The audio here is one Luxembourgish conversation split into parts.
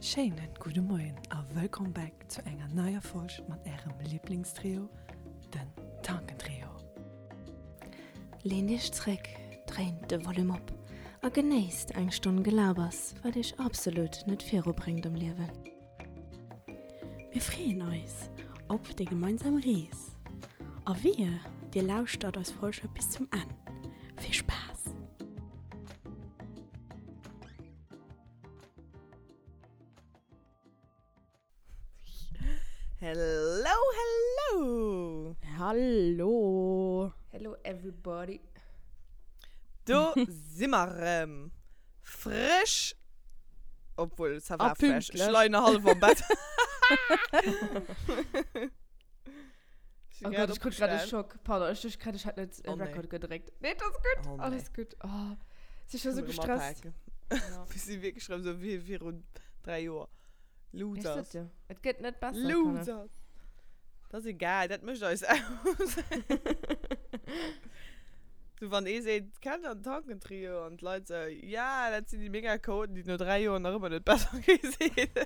Schéinen gudde Moien a wëllkomm back zu enger neier Folg mat ärem Liblingstrio, den Tankentrio. Leent iech zréck, dréint de Volume op a genéisst eng Stonn Gelabers, wat iech absolut net virubréngt am Liewen. Mir freeën eis op déi gemeinsam Rees a wehe dir lauschtert eis Folge bis zum Enn. Vill Spaass! Hello, hello! Hallo! Hello everybody! Do si mer rëm. Frësch! Obwuel, ça va A fresh. Ech pünktlech. leien nach hallef am Bett. Ech Oh si grad Gott, ech krut grad e opgestan. Schock. Pardon, ech duecht grad, ech hätt net Oh nee. Record gedréckt. Nee, et ass gutt. Oh nee. Alles gutt. Oh, si scho Kënne sou mer rëm gestresst. apaken. Ja. Mir si wierklech rëm sou wéi virun 3 Joer. Ech Losers. sot jo, et gëtt net besser, Kanner. Losers. Dat ass egal, dat mécht eis aus. Sou wann ee seet, kennt der den Tankentrio? An d'Leit sou, ja, dat sinn déi mega Chaoten, déi no 3 Joer nach ëmmer net besser gi sinn.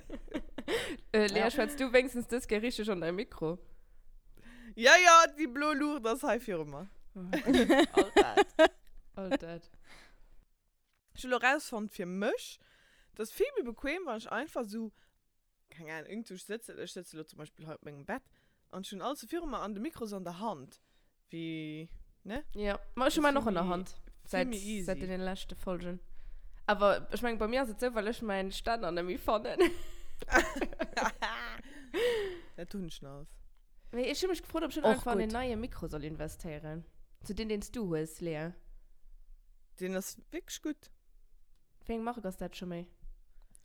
Äh, Lea, schwätz du wéinstens dës Kéier richteg an däi Mikro? Ja, ja, déi blo Luucht ass hei viru mer. All dat. All dat. Ech hu lo rausfonnt fir mech, et ass vill méi bequem, wann ech einfach sou, keng Ahnung, iergendwou sëtzen, ech sëtze lo zum Beispill hei op mengem Bett an ech hunn alles sou viru mer an de Mikro ass an der Hand, wéi, ne? Jo, ma ech hu Ass mäin vill och an der méi, Hand, vill säit, méi säit easy. deene leschte Folgen. Awer ech mengen, bei mir ass et sou, well ech mäin Stänner net méi fannen. Dat hunn ech nach. Mee ech hu mech gefrot, ob ech net Och einfach an gutt. en neie Mikro soll investéieren. Sou deen, deen s du hues, Lea. Deen ass wierklech gutt. Wéi eng Mark ass dat scho méi?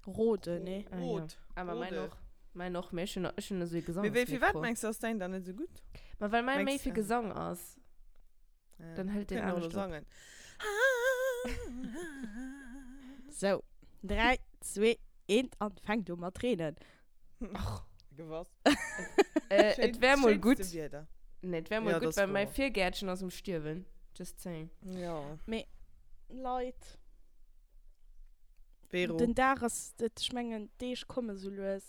Rode, nee? Ah, ja. Rot. Ah, ma mäin Rode. och. Mäin och, mee ech hunn, ech hunn esou ee Mee wéi, firwat Gesangsmikro. mengs du ass däin dann net esou gutt? Ma well mäi méi Mengs fir äh, Gesang ass. Ja. Dann hëlt deen Kënnen och elo anescht op. sangen. Sou, 3, 2, 1 an fänkt u mat reenen. Och. Gewass. Äh, Schéin, et wär mol gutt. schéinste Wieder. Nee, et wär mol Ja, dat gutt, ass well mäi wouer. Virgäertchen ass um Stierwen. Just saying. Ja. Mee Leit, Vero. den Dag ass, ech mengen d'Deeg komme sou lues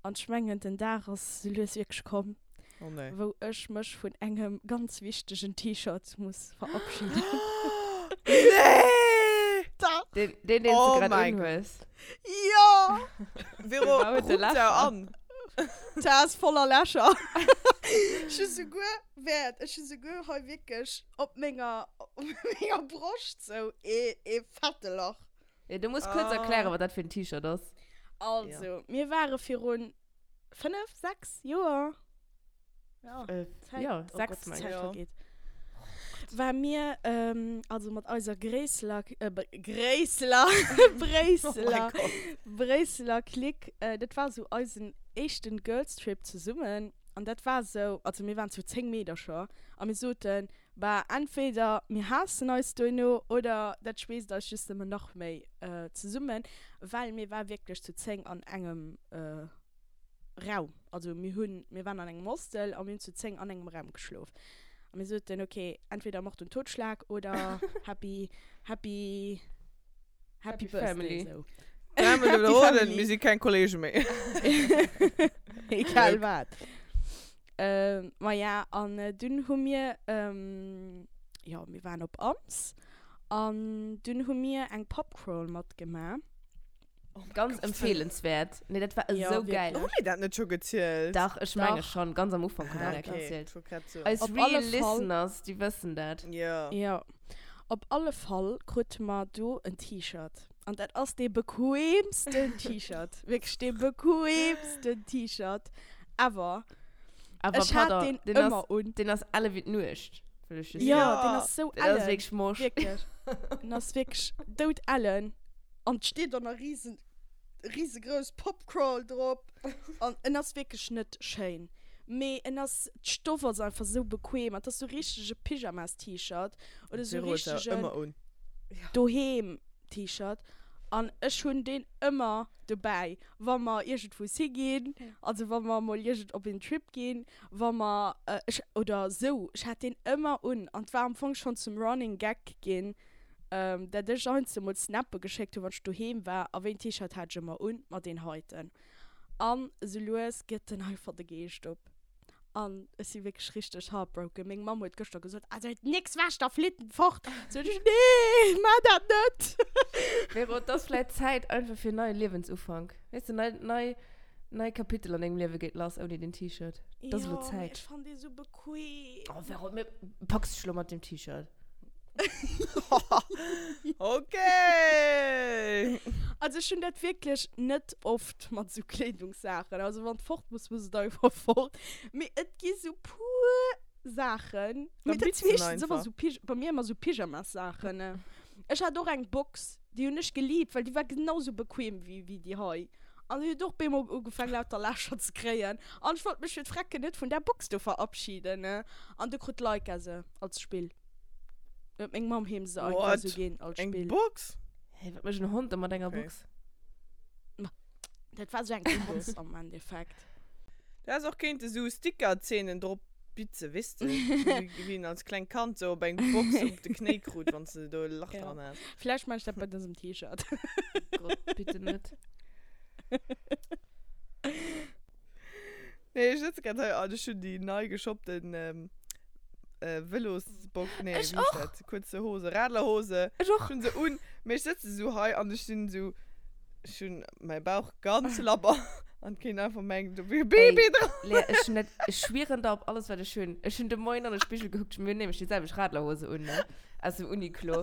an ech mengen den Dag ass sou lues wierklech komm, Oh nee. wou ech mech vun engem ganz wichtegen T-Shirt muss verabschieden. Nee! Dach! Deen, deen, deen s Oh du grad mein Gott. unhues. Jo! Vero, Dee huet de ruppt Lächer. der an. Dat ass voller Lächer. Ech hu souguer, wäert, ech hu souguer hei wierklech op menger, op menger Broscht sou ee, ee fette Lach. Ja, du muss kuerz erklären, wat dat fir en T-Shirt ass. Also, mir ware virun 5, 6 Joer, ja, Äh, Zäit, ja, oh 6 Gott, meng d'Zäit ech. Ja. vergeet, war mir, ähm, also mat eiser Gréisseler, äh, Gréisseler, Oh mein Bréisseler, Gott. Bréisseler Clique, äh, dat war sou eisen éischten Girls Trip zesummen an dat war sou, also mir waren zu 10 Meedercher a mir soten, bah, entweder mir haassen eis duerno oder dat schweesst eis just nëmmen nach méi zesummen, well mir war wierklech zu 10 an engem Raum, also mir hunn, mir waren an engem Hostel a mir hunn zu 10 an engem Raum geschlof a mir soten, okay, entweder Mord und Totschlag oder happy, happy, happy Happy Birthday, Family. sou. Dräimol Happy wiederholen, Family. mir si keng Kollege méi. Egal wat. Ähm, ma ja, an dunn hu mir, jo, mir waren op Ams an dunn hu mir eng Pubcrawl matgemaach. Ganz empfehlenswert. Nee, dat war Ja, esou geil. Hu mir dat net scho gezielt? Dach, ech menge Dach. schon. Ganz am Ufank hu mir Ah, dat okay. gezielt. Ich wollt grad soen. Eis Op real alle Fall. Listeners, déi wëssen dat. Ja. Ja. Op alle Fall krute mer do en T-Shirt. An dat ass dee bequeemsten T-Shirt. Wierklech dee bequeemsten T-Shirt ever. Awer Ech hat pardon, deen deen ass, ëmmer un. deen ass elle wéi d'Nuecht, wëll ech just Ja, soen. deen ass sou Deen ass ellen. wierklech morsch. Wierklech. Deen ass wierklech doudellen. An et steet dann nach riesen, riesegrouss Popcrawl drop. An en ass wierklech net schéin. Mee en ass, d'Stoff ass einfach sou bequem. An et ass sou richtege Pyjamas-T-Shirt oder sou Vero huet der richtegen ëmmer un. Doheem-T-Shirt. An ech hunn deen ëmmer dobäi, wa mer iergendwous higinn, also wa mer mol iergend op een Trip ginn, wa mer, ech, oder sou. Ech hat deen ëmmer un. An et war am Fong schonn zum Running Gag ginn. Dat ech heiansdo mol Snappe geschéckt hunn, wann ech doheem war. A wéi en T-Shirt hat ech ëmmer un? Ma deen heiten. An esou lues gëtt en einfach de Geescht op. An ech si wierklech richteg heartbroken. Meng Mamm huet gëschter gesot, Also nix wäsch, da flitt en fort. Sot ech, Nee, maach dat net! Vero, et ass vläit Zäit einfach fir en neie Liewensufank. Weess de, nei, nei, nei Kapitel an dengem Liewe geet lass ouni den T-Shirt. Et ass elo Jo, mee Zäit. ech fannen dee sou bequem. Oh Vero, mir packs dech elo mat deem T-Shirt. Okay! Also ech hunn dat wierklech net oft mat esou Kleedungssaachen. Also wann et fort muss, muss et einfach fort. Mee et gi sou puer Saachen, Dann mee dat bitz si en meeschtens ëmmer einfach. sou Pyj-, bei mir ëmmer sou Pyjamassaachen. Ech hat och eng Box, déi hunn ech geliebt, well déi war genau sou bequem wéi, wéi déi hei. An déi huet och bemol ugefaangen lauter Lächer ze kréien. An ech wollt mech fir d'Frecken net vun där Box do verabschieden. An du krut d'Laika se als Spill. Huet meng Mamm him se einfach What? sou ginn als Eng Spill. Box? Hä, wat mécht en Hond da mat enger Okay. Box? Ma dat war sou eng Katz am Endeffekt. Du häss och kéinte sou Sticker-Zeenen drop bitze, weess de? Wéi wéi een als klengt Kand sou op eng Box op de Knéi krut, wann s de do e Lach Ja. dran has. Vläicht maan ech dat bei dësem T-Shirt. Gott, bitte net. Nee, ech sëtze grad hei an ech hunn déi nei geshoppten Vëlosbock, nee, Ech wéi heescht och! dat? Kuerze Hose, Radlerhose. Ech och! Ech hunn se un, mee ech sëtze sou hei an ech sinn sou, ech hunn mäi Bauch ganz labber an et kéint einfach mengen, do wier e Baby Ey, dran. Lea, ech hunn dat, ech schwieren der op alles, wat ech hunn. Ech hunn de Moien an de Spigel gekuckt, mir hunn nämlech déi selwecht Radlerhose un, ne, aus dem Uniqlo.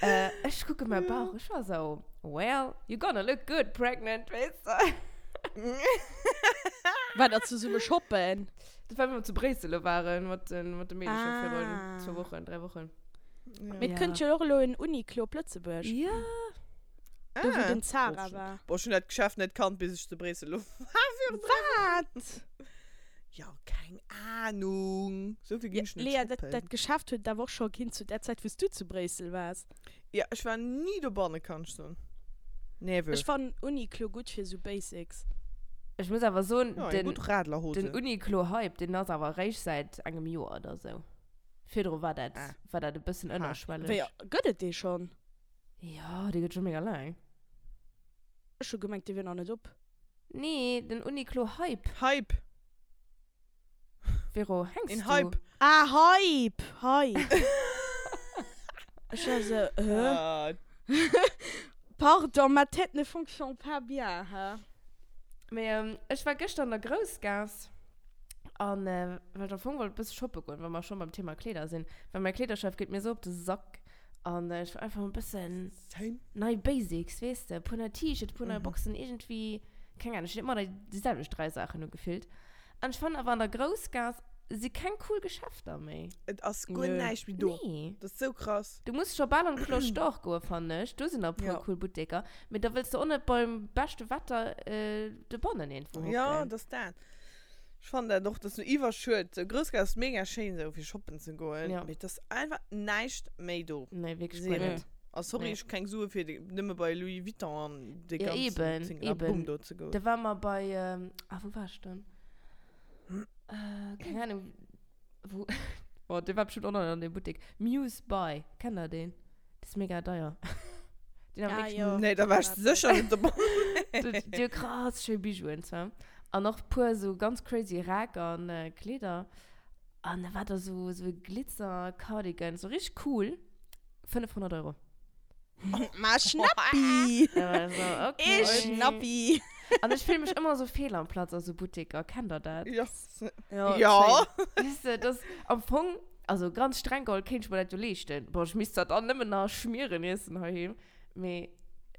Ech kucke mäi Bauch, ech war sou, well, you're gonna look good pregnant, weess de. War der zesumme shoppen? Dat war, wéi mer zu Bréissel lo waren, mat den, mat de Meedecher ah. virun zwou Wochen, 3 Wochen. Ja. Mee et kënnt jo och elo en Uniqlo op Lëtzebuerg. Ja. Do, wou Ah. den Zara war. Boah, ech hunn dat Geschäft net kannt, bis ech zu Bréissel lo war virun 3 Wochen. Wat? Ja, keng Ahnung. Sou vill ginn ech net Lea, dat, shoppen. dat Geschäft huet et awer och scho ginn zu där Zäit, wou s du zu Bréissel waars. Ja, ech war ni dobanne, kann ech soen. Never. Ech fannen Uniqlo gutt fir sou Basics. Ech muss awer soen, Ja, eng den, gutt Radlerhose. den Uniqlo-Hype, deen ass awer eréischt säit engem Joer oder sou. Virdru war dat, Ah. war dat e bëssen Ha. ënnerschwelleg. Wéi, gëtt et dee schonn? Jo, dee gëtt scho mega laang. Ech hu gemengt, dee wier nach net op. Nee, den Uniqlo-Hype. Hype. Vero, hänks Een du? Hype. Ah, Hype! Hype! Ech war sou, hä? Ah, Pardon, ma tête ne fonctionne pas bien, hä? Mee ähm, ech war gëschter an der Groussgaass an äh, well ech am Fong wollt e bësse shoppe goen, wa mer schonn beim Thema Kleeder sinn, well mäi Kleederchef geet mir sou op de Sack an äh, ech wollt einfach e bëssen same. nei Basics, weess de, e puer nei T-Shirts, e puer nei Boxen, iergendwéi, keng Ahnung, ech hunn ëmmer déi selwecht 3 Saachen u gefillt. An ech fannen awer an der Groussgaass si keng cool Geschäfter méi. Et ass guer Nö. näischt méi do. Nee. Dat ass sou krass. Du muss scho bal an d'Cloche d'Or goen, fannen ech. Do sinn nach e puer Ja. cool Butteker. Mee da wëlls de och net beim beschte Wetter dobannen iergendwou hocken. Ja, dat ass dat. Ech fannen dat och, dat ass sou iwwerschued. Sou Groussgaass ass mega schéin sou fir shoppen ze goen, Ja. mee et ass einfach näischt méi do. Nee, wierklech guer Zero. net. A sorry, Nee. ech hu keng Sue fir de, nëmme bei Louis Vuitton an dee Ja, ganzen eben, Zingarabum eben. do ze goen. Da ware mer bei, ah, wou war ech dann? Äh, keng Ahnung, wou, oh, dee war bestimmt och nach an deem Buttek. Muse Buy, kennt der deen? Dee ass mega deier. Deen hat Ah, wierklech jo. Nee, da war ech sécher net dobei. Déi déi hu krass schéi Bijouen zwar. An och puer sou ganz crazy Räck an Kleeder. An da war da sou, sou e Glitzer-Cardigan, sou richteg cool. 500 Euro. Ma Schnappi! Also, okay. Ee Schnappi! An ech fillen mech ëmmer sou fehl am Platz a sou Butteker. Kennt der dat? Ja. Ja. Ja. Weess de, dass am Fong, also ganz streng geholl, kéint ech mer dat jo leeschten. Bon, ech misst zwar dann nëmmen nach Schmieren iessen heiheem, mee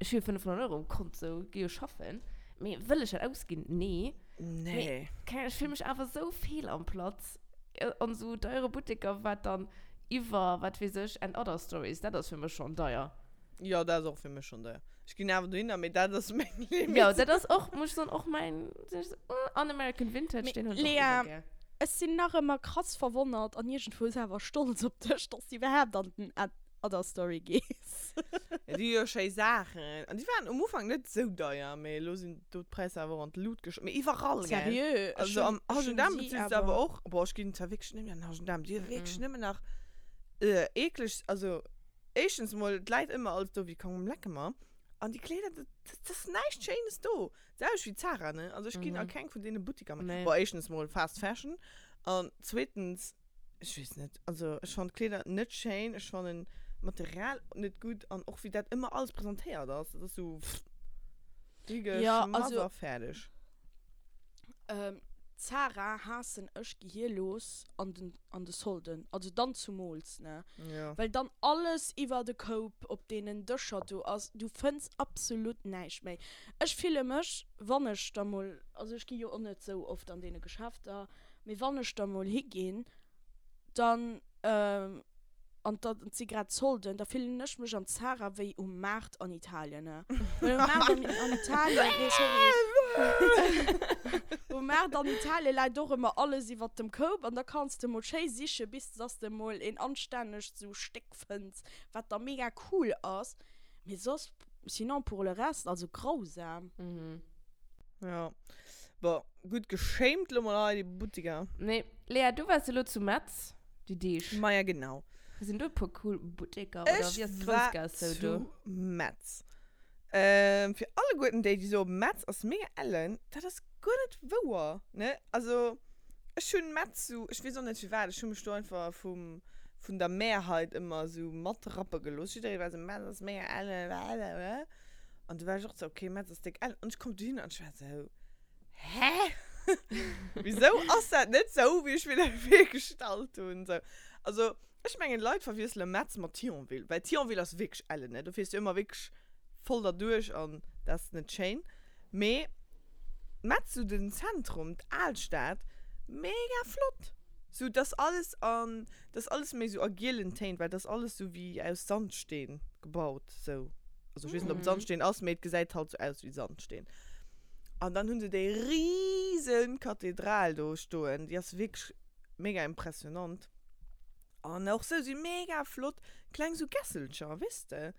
ech hu jo 500 Euro um Kont, sou, gi jo schaffen. Mee wëll ech dat ausginn? Nee. Nee. Mee, keng Ahnung, ech fillen mech awer sou fehl am Platz an sou deiere Butteker, wat dann iwwer, wat weess ech, and other stories, dat ass fir mech schonn deier. Jo, dat ass och fir mech schonn deier. Ech ginn awer dohinner, mee dat ass meng Limit. Jo, dat ass och, muss ech soen, och mäin, an American Vintage, deen hunn ech och Lea, iwwer gär. ech sinn nach ëmmer krass verwonnert an iergendwou awer stolz op dech, dass du iwwerhaapt an den Other Story gees. Ja, déi hu jo schéi Saachen. An déi waren um Ufank net esou deier, mee elo sinn do d'Präisser awer och an d'Lut gesch-. Mee iwwerall, gell? Seriö? Ech Also hunn, am ech hunn H&M si bezils de awer. awer och. Boah, ech ginn zwar wierklech net méi an den H&M. Déi hu wierklech nëmmen nach eekleg, also. Éischtens mol, et läit ëmmer alles do wéi komm lecke mer. An déi Kleeder, dat, dat ass näischt Schéines do. D'selwecht wéi Zara, ne? Also ech ginn a keng vun deene Buttiker méi. Nee. Bon, éischtens mol Fast Fashion an zweetens, ech weess net, also ech fannen d'Kleeder net schéin, ech fannen d'Material net gutt an och wéi dat ëmmer alles presentéiert ass, dat ass sou Ja, higeschmass also a fäerdeg. Zara haassen ech gehierlos an den an de Solden, also dann zumools, ne? Ja. Well dann alles iwwer de Koup op deenen Dëscher do ass, du fënns absolut näischt méi. Ech fille mech, wann ech da mol, also ech gi jo och net sou oft an deene Geschäfter, mee wann ech da mol higinn, dann, an da si grad Solden, da fillen ech mech am Zara wéi um Maart an Italien, ne? Well um Maart an, an Italien, nee sorry, um Maart an Italien läit och ëmmer alles iwwert dem Koup an da kanns de mol schéi siche bis dass de mol een anstännegt sou Stéck fënns, wat da mega cool ass, mee soss, sinon pour le reste, also grausam. Ja, bon, gutt geschämt lo mol hei déi Buttiker. Nee, Lea, du waars elo zu Metz. Déi Deeg. Maja genau. Sinn do e puer cool Butteker oder Ech wéi ass war d'Groussgaass sou do? zu Metz. Ähm, fir alleguerten déi, déi soen, Metz ass mega ellen, dat ass guer net wouer, ne? Also, ech hunn Metz sou, ech weess och net firwat, ech hu mech do einfach vum, vun der Mehrheit ëmmer sou matrappe gelooss. Jidderee war sou, Metz ass mega ellen, blablabla. An du war ech och sou, okay, Metz ass déck ellen. An ech komm dohinner an ech war sou, Hä? Wisou ass dat net sou, wéi ech mir dat virgestallt hunn? Sou, also, ech mengen, Leit verwiessele Metz mat Thionville, well Thionville ass wierklech ellen, ne? Do fiers du ëmmer wierklech voll derduerch an dat ass net schéin. Mee Metz, sou den Zentrum, d'Alstad, mega flott! Sou, dass alles an, dass alles méi sou a gielen Téin, well dass alles sou wéi aus Sandsteen gebaut, sou. Also ech weess net, ob et Sandsteen ass, mee et gesäit halt sou aus wéi Sandsteen. An dann hunn se déi riesen Kathedral do stoen, déi ass wierklech mega impressionant. An och sou si mega flott kleng sou Gässelcher, weess de.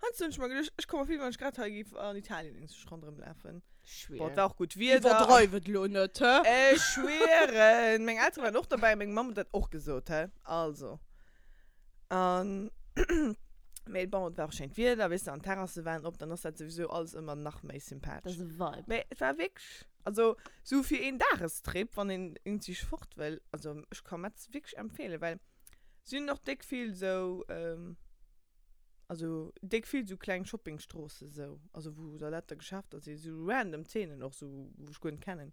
Heiansdo hunn ech mer geduecht, ech komme mer vir, wéi wann ech grad hei géif an Italien iergendwou ronderëm lafen. Bon, et war och gutt Wieder. Iwwerdreiw et elo net, hä? Ech schwieren! Meng Eltere waren och dobäi, meng Mamm huet dat och gesot, hä? Also. An, mee bon, et war och schéint Wieder, weess de, an d'Terrasse waren op, dann ass dat souwisou alles ëmmer nach méi sympathesch. Dat ass e Vibe. Mee et war wierklech, also sou fir een Dagestrip, wann een iergendwéi fort wëll, also ech ka Metz wierklech empfeelen, well si hunn och déck vill sou, Also déck vill sou kleng Shoppingstroossen sou, also wou da lauter Geschäfter sinn, sou random Zeenen och sou, wou ech guer net kennen.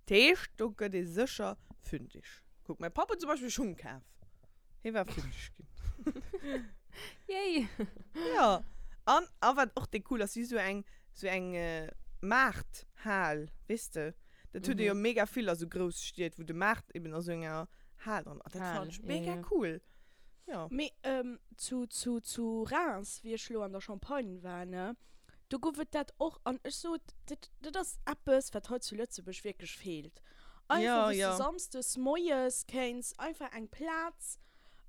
Dat heescht, do gëtt ee sécher fündig. Kuck, mäi Papp huet zum Beispill Schung kaf. Hie war fündig ginn. Yay! Jo. An, a wat och déck cool ass, si sou eng, sou eng Maarthal, weess de? Dat huet ee jo mega vill a sou Grousstied, wou de Maart eben a sou enger Hal dran ass. Dat fannen ech mega cool. Ja. Mee zu, zu, zu Reims, wéi ech lo an der Champagne war, ne, do gouf et dat och. An ech sot, dat, dat ass eppes, wat hei zu Lëtzebuerg wierklech feelt. Einfach, Ja, wou s ja. de samsdes moies kéints einfach eng Plaz,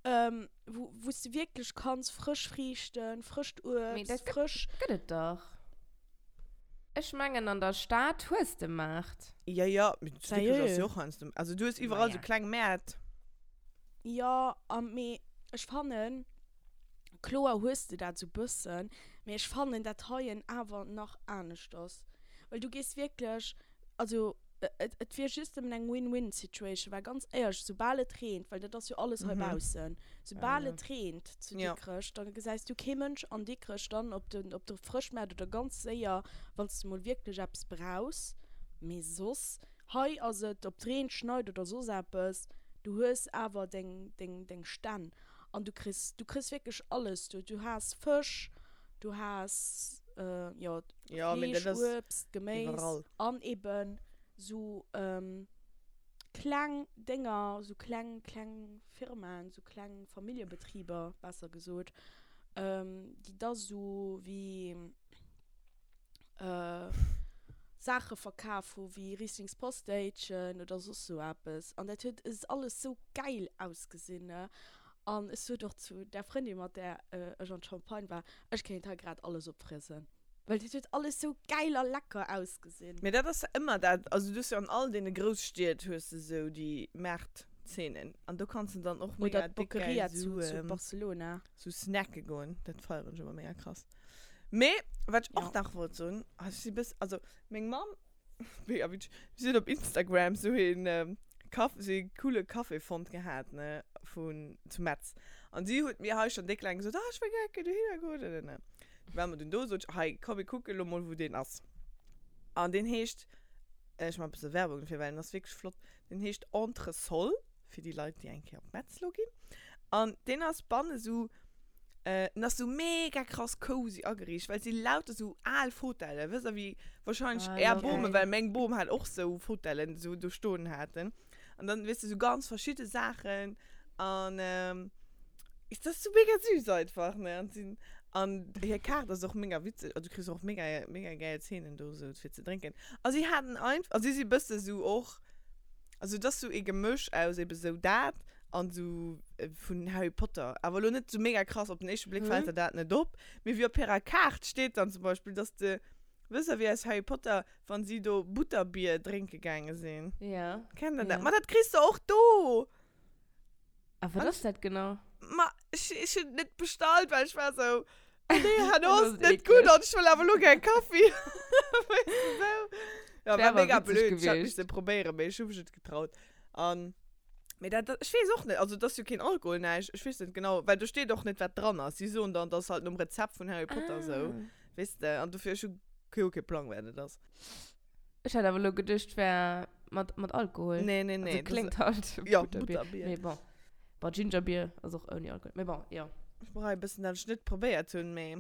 wou, wou s de wierklech kanns frësch Friichten, frëscht Mee Uebst, dat gëtt, frësch. gëtt et dach. Ech mengen, an der Stad hues de Maart. Ja, ja, mee zu Dikrech ass Sérieux? jo och heiansdo, also du hues iwwerall Maja. sou kleng Mäert. Jo, a mee ech fannen, kloer hues de dat sou bëssen, mee ech fannen dat heien awer nach anescht ass, well du gees wierklech, also et et wier just nëmmen eng Win-Win Situation, well ganz éierlech, soubal et reent, well dat ass jo alles hei baussen, soubal et reent zu Dikrech, da gesäis du kee Mënsch an Dikrech dann op de op de Frëschmaart oder ganz séier, wann s de mol wierklech eppes brauchs, mee soss Hei ass et, ob 't reent, schneit oder soss eppes, du hues awer deng, deng, deng Stänn an du kriss, du kriss wierklech alles do. Du has Fësch, du has, jo, Ja, mee dat Fleesch, ass Uebst, Geméis iwwerall. an eben sou kleng Dénger, sou kleng, kleng Firmaen, sou kleng Familljebetriber, besser gesot, déi da sou wéi. Saache verkaf hu wéi Rieslings Postéitchen oder soss sou eppes an dat huet es alles sou gäil ausgesinn ne an ech sot och zu där Frëndin mat där ech an d'Champagne war, ech kéint hei grad alles opfriesen, well dat huet alles sou gäil a lecker ausgesinn. Mee dat ass ëmmer dat, also du hues jo an all deene Grousstied hues de sou déi Maartzenen. Szenen. An do kanns de dann och mega Oder dick geil d'Boqueria sou, zu, zu Barcelona. sou snacke goen. Dat feieren ech ëmmer mega krass. Mee wat ech och Ja. nach wollt soen, ah, ech si bëss, also meng Mamm, mega witzeg, si huet op Instagram sou een Kaff, sou ee coole Café fonnt gehat, ne, vun, zu Metz. An si huet mir hei schonn déck laang gesot, ah, ech wëll gär eng Kéier dohinner goen, ne, ne, ne. Du ware mer dunn do, sot ech, hei, komm mir kucke lo mol wou deen ass. An deen heescht, ech man e bësse Werbung dofir, well en ass wierklech flott, deen heescht Entresol, fir déi Leit, déi eng Kéier op Metz lo ginn. An deen ass banne sou, en ass sou mega krass cozy ageriicht, well et si lauter sou al Fotellen, wësst der, wéi wahrscheinlech Ah, är love Bomen, it. well meng Bom hat och sou Fotellen sou do stoen haten. An dann, weess de, sou ganz verschidde Saachen an et ass sou mega süß einfach, ne? An sinn, an hir Kaart ass och mega witzeg, also du kriss och mega, mega gäil Zeenen do sou fir ze drénken. A si haten einf-, a si si bësse sou och, also et ass sou ee Gemësch aus ebe sou dat an sou vun Harry Potter, awer elo net sou mega krass, op den éischte Bléck fält der dat net op, mee wéi op hirer Kaart steet dann zum Beispill, dass de, wësst der wéi aus Harry Potter, Wann si do Butterbier drénke gaange sinn. Ja. Kennt der dat? Ja. Ma dat kriss de och do! A wat ass dat genau? Ma ech, ech hunn et net bestallt, well ech war sou, oh nee, herno Dat ass ass et net eekleg. gutt an ech wëll awer elo gär Kaffi. Weess de sou? Ja, Wär war awer mega witzeg blöd. Ech hätt gewiescht. misse probéieren, mee ech hu mech net getraut. An, mee dat, dat, ech weess och net, also et ass jo keen Alkohol, näischt, ech weess net genau, well do steet och net, wat dran ass. Si soen dann, dat ass halt nom Rezept vun Harry Potter sou. Ah. Weess de, an dofir, ech hu jo kee Plang, wat et ass. Ech hat awer elo geduecht, wär mat, mat Alkohol. Nee, nee, nee. Also kléngt halt Ja, Butterbier. Butterbier. Mee bon. Bon, Gingerbier ass och ouni Alkohol. Mee bon, jo. Ech bereie e bëssen, dat ech net probéiert hunn, mee